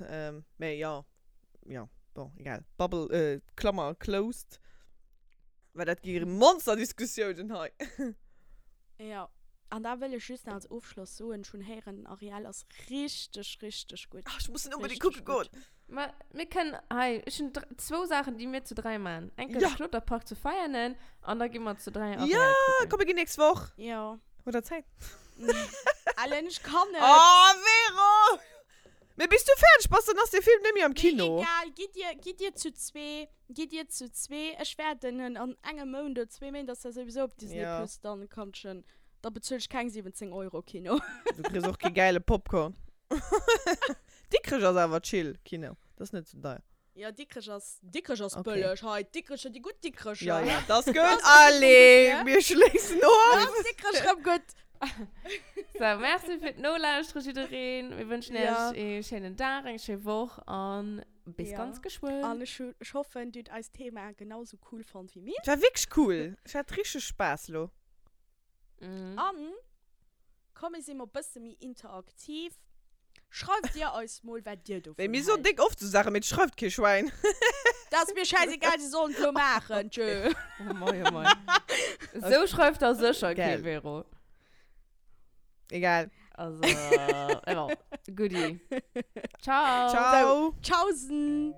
mee jo, jo, bon, egal, Bubble, Klammer closed, well dat gi Monsterdiskussiounen hei. Jo, an da wëll ech just nach als Ofschloss soen, ech hunn héieren, den Ariel ass richteg, richteg gutt. Ach, ech muss en unbedingt kucke goen. Ma mir kënnen hei, ech hunn zwou Saachen, déi mir zu dräi maachen. Eng Kéier de Kloterpark zu Veianen an da gi mer zu dräi Ariel kucken. Jo, komm mir ginn nächst Woch. Jo. Hutt der Zäit? Ellen, ech kann net. Oh, Vero! Mee bis du fäerdeg bass, dann ass dee Film net méi am Kino. Mee egal, gitt dir, gitt dir zu zwee, gitt dir zu zwee. Ech wäerten en an engem Mount oder zwee Méint ass der souwisou op Disney Ja. Plus, dann kann ech en, da bezuel ech keng 17 Euro Kino. Du kriss och kee gäile Popcorn. Dikrech ass awer chill Kino, dat ass net sou deier. Jo, Dikrech ass, Dikrech ass Okay. bëlleg. Hei, Dikrecher, déi gutt Dikrecher. Ja, ja, dat ass gutt. Das ass Allez, rëm gutt, mir schléissen of. Da ass Dikrech rëm gutt. So, merci fir d'Nolauschteren, jiddereen. Mir wënschen Ja. iech ee schéinen Dag, eng schéi Woch an bis Ja. ganz geschwënn. An ech hu, ech hoffen, dir hutt eist Thema genau sou cool fonnt wéi mir. Et war wierklech cool. Ech hat richteg Spaass lo. Mhm. An komm mir si mol bësse méi interaktiv. Schreift dir eis mol wat dir dovun Wéi mir soen hält. déck oft sou Saachen, mee et schreift kee Schwäin. Dat ass mir schäisegal, si sollen et lo maachen, tjö. Oh mei, oh mei. Sou schreift der sécher kee Gell. Vero. Egal. Also, bon, goodie. Ciao. Ciao. Tschaußen.